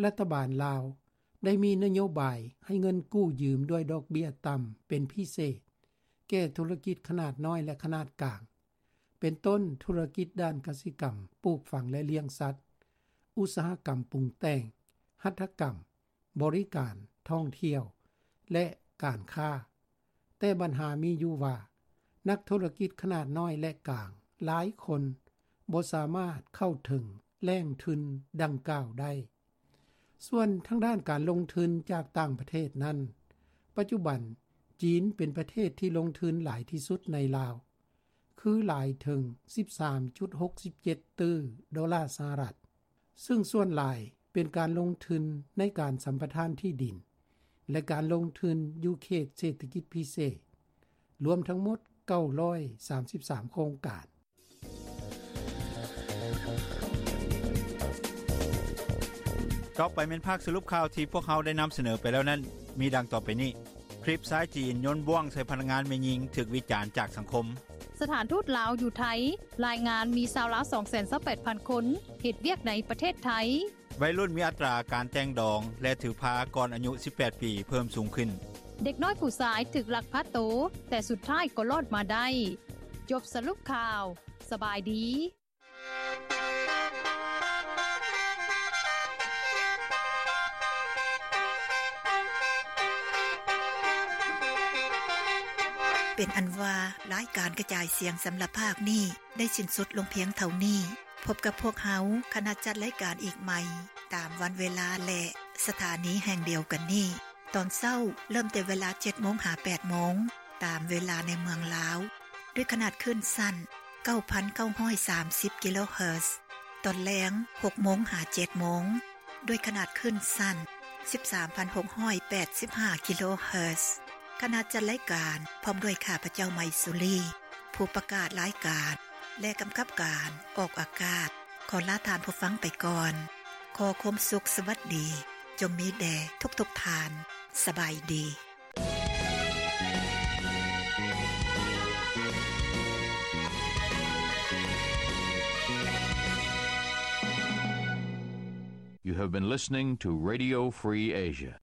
ລັດຖະບານລາວໄດ້ມີນະໂຍບາຍໃຫ້ເງິນກູ້ຢືມດ້ວຍດອກເບ້ຍຕ່ຳເປັນພິເສດ ແກ່ທຸລະກິດຂະໜາດນ້ອຍ ແລະ ຂະໜາດກາງ, ເປັນຕົ້ນທຸລະກິດດ້ານກະສິກຳ, ປູກຝັງ ແລະ ລ້ຽງສັດ, ອຸດສາຫະກຳປຸງແຕ່ງ, ຫັດຖະກຳ, ບໍລິການ, ທ່ອງທ່ຽວ ແລະ ການຄ້າ. ແຕ່ບັນຫາມີຢູ່ວ່າ ນັກທຸລະກິດຂະໜາດນ້ອຍ ແລະ ກາງຫຼາຍຄົນບໍ່ສາມາດເຂົ້າເຖິງແຫຼ່ງທຶນດັ່ງກ່າວໄດ້. ສ່ວນທາງດ້ານການລົງທຶນຈາກຕ່າງປະເທດນັ້ນ, ປັດຈຸບັນຈີນເປັນປະເທດທີ່ລົງທຶນຫຼາຍທີ່ສຸດໃນລາວ, ຄືຫຼາຍເຖິງສິບສາມຈຸດຫົກສິບເຈັດຕື້ໂດລາສະຫະລັດ, ຊຶ່ງສ່ວນຫຼາຍເປັນການລົງທຶນໃນການສຳປະທານທີ່ດິນ ແລະ ການລົງທຶນຢູ່ເຂດເສດຖະກິດພິເສດ, ລວມທັງໝົດເກົ້າຮ້ອຍສາມສິບສາມໂຄງການ. ຕໍ່ໄປແມ່ນພາກສະຫຼຸບຂ່າວທີ່ພວກເຮົາໄດ້ນຳສະເໜີໄປແລ້ວນັ້ນ ມີດັ່ງຕໍ່ໄປນີ້. ຄລິບຊາຍຈີນໂຍນບ້ວງໃສ່ພະນັກງານແມ່ຍິງຖືກວິຈານຈາກສັງຄົມ. ສະຖານທູດລາວຢູ່ໄທລາຍງານມີຊາວລາວສອງແສນຊາວແປດພັນຄົນເຮັດວຽກໃນປະເທດໄທ. ໄວລຸ້ນມີອັດຕາການແຕ່ງດອງ ແລະ ຖືພາກ່ອນອາຍຸສິບແປດປີເພີ່ມສູງຂຶ້ນ. ເດັກນ້ອຍຜູ້ຊາຍຖືກລັກພາໂຕ, ແຕ່ສຸດທ້າຍກໍລອດມາໄດ້. ຈົບສະຫຼຸບຂ່າວ. ສະບາຍດີ. ເປັນອັນວ່າ ລາຍການກະຈາຍສຽງສຳລັບພາກນີ້ໄດ້ສິ້ນສຸດລົງພຽງເທົ່ານີ້. ພົບກັບພວກເຮົາ ຄະນະຈັດລາຍການອີກໃໝ່ ຕາມວັນເວລາ ແລະ ສະຖານີແຫ່ງດຽວກັນນີ້. ຕອນເຊົ້າເລີ່ມແຕ່ເວລາເຈັດໂມງຫາແປດໂມງ ຕາມເວລາໃນເມືອງລາວ ດ້ວຍຂະໜາດຄື້ນສັ້ນ ເກົ້າພັນເກົ້າຮ້ອຍສາມສິບກິໂລເຮີດ. ຕອນແລງ ຫົກໂມງຫາເຈັດໂມງ ດ້ວຍຂະໜາດຄື້ນສັ້ນ ສິບສາມພັນຫົກຮ້ອຍແປດສິບຫ້າກິໂລເຮີດ. ຄະນະຈັດລາຍການ ພ້ອມດ້ວຍຂ້າພະເຈົ້າ ໄມສຸລີ ຜູ້ປະກາດລາຍການ ແລະ ກຳກັບການອອກອາກາດ ຂໍລາທ່ານຜູ້ຟັງໄປກ່ອນ. ຂໍຄວາມສຸກສະຫວັດດີ ຈົ່ງມີແດ່ທຸກໆທ່ານ. ສະບາຍດີ. You have been listening to Radio Free Asia.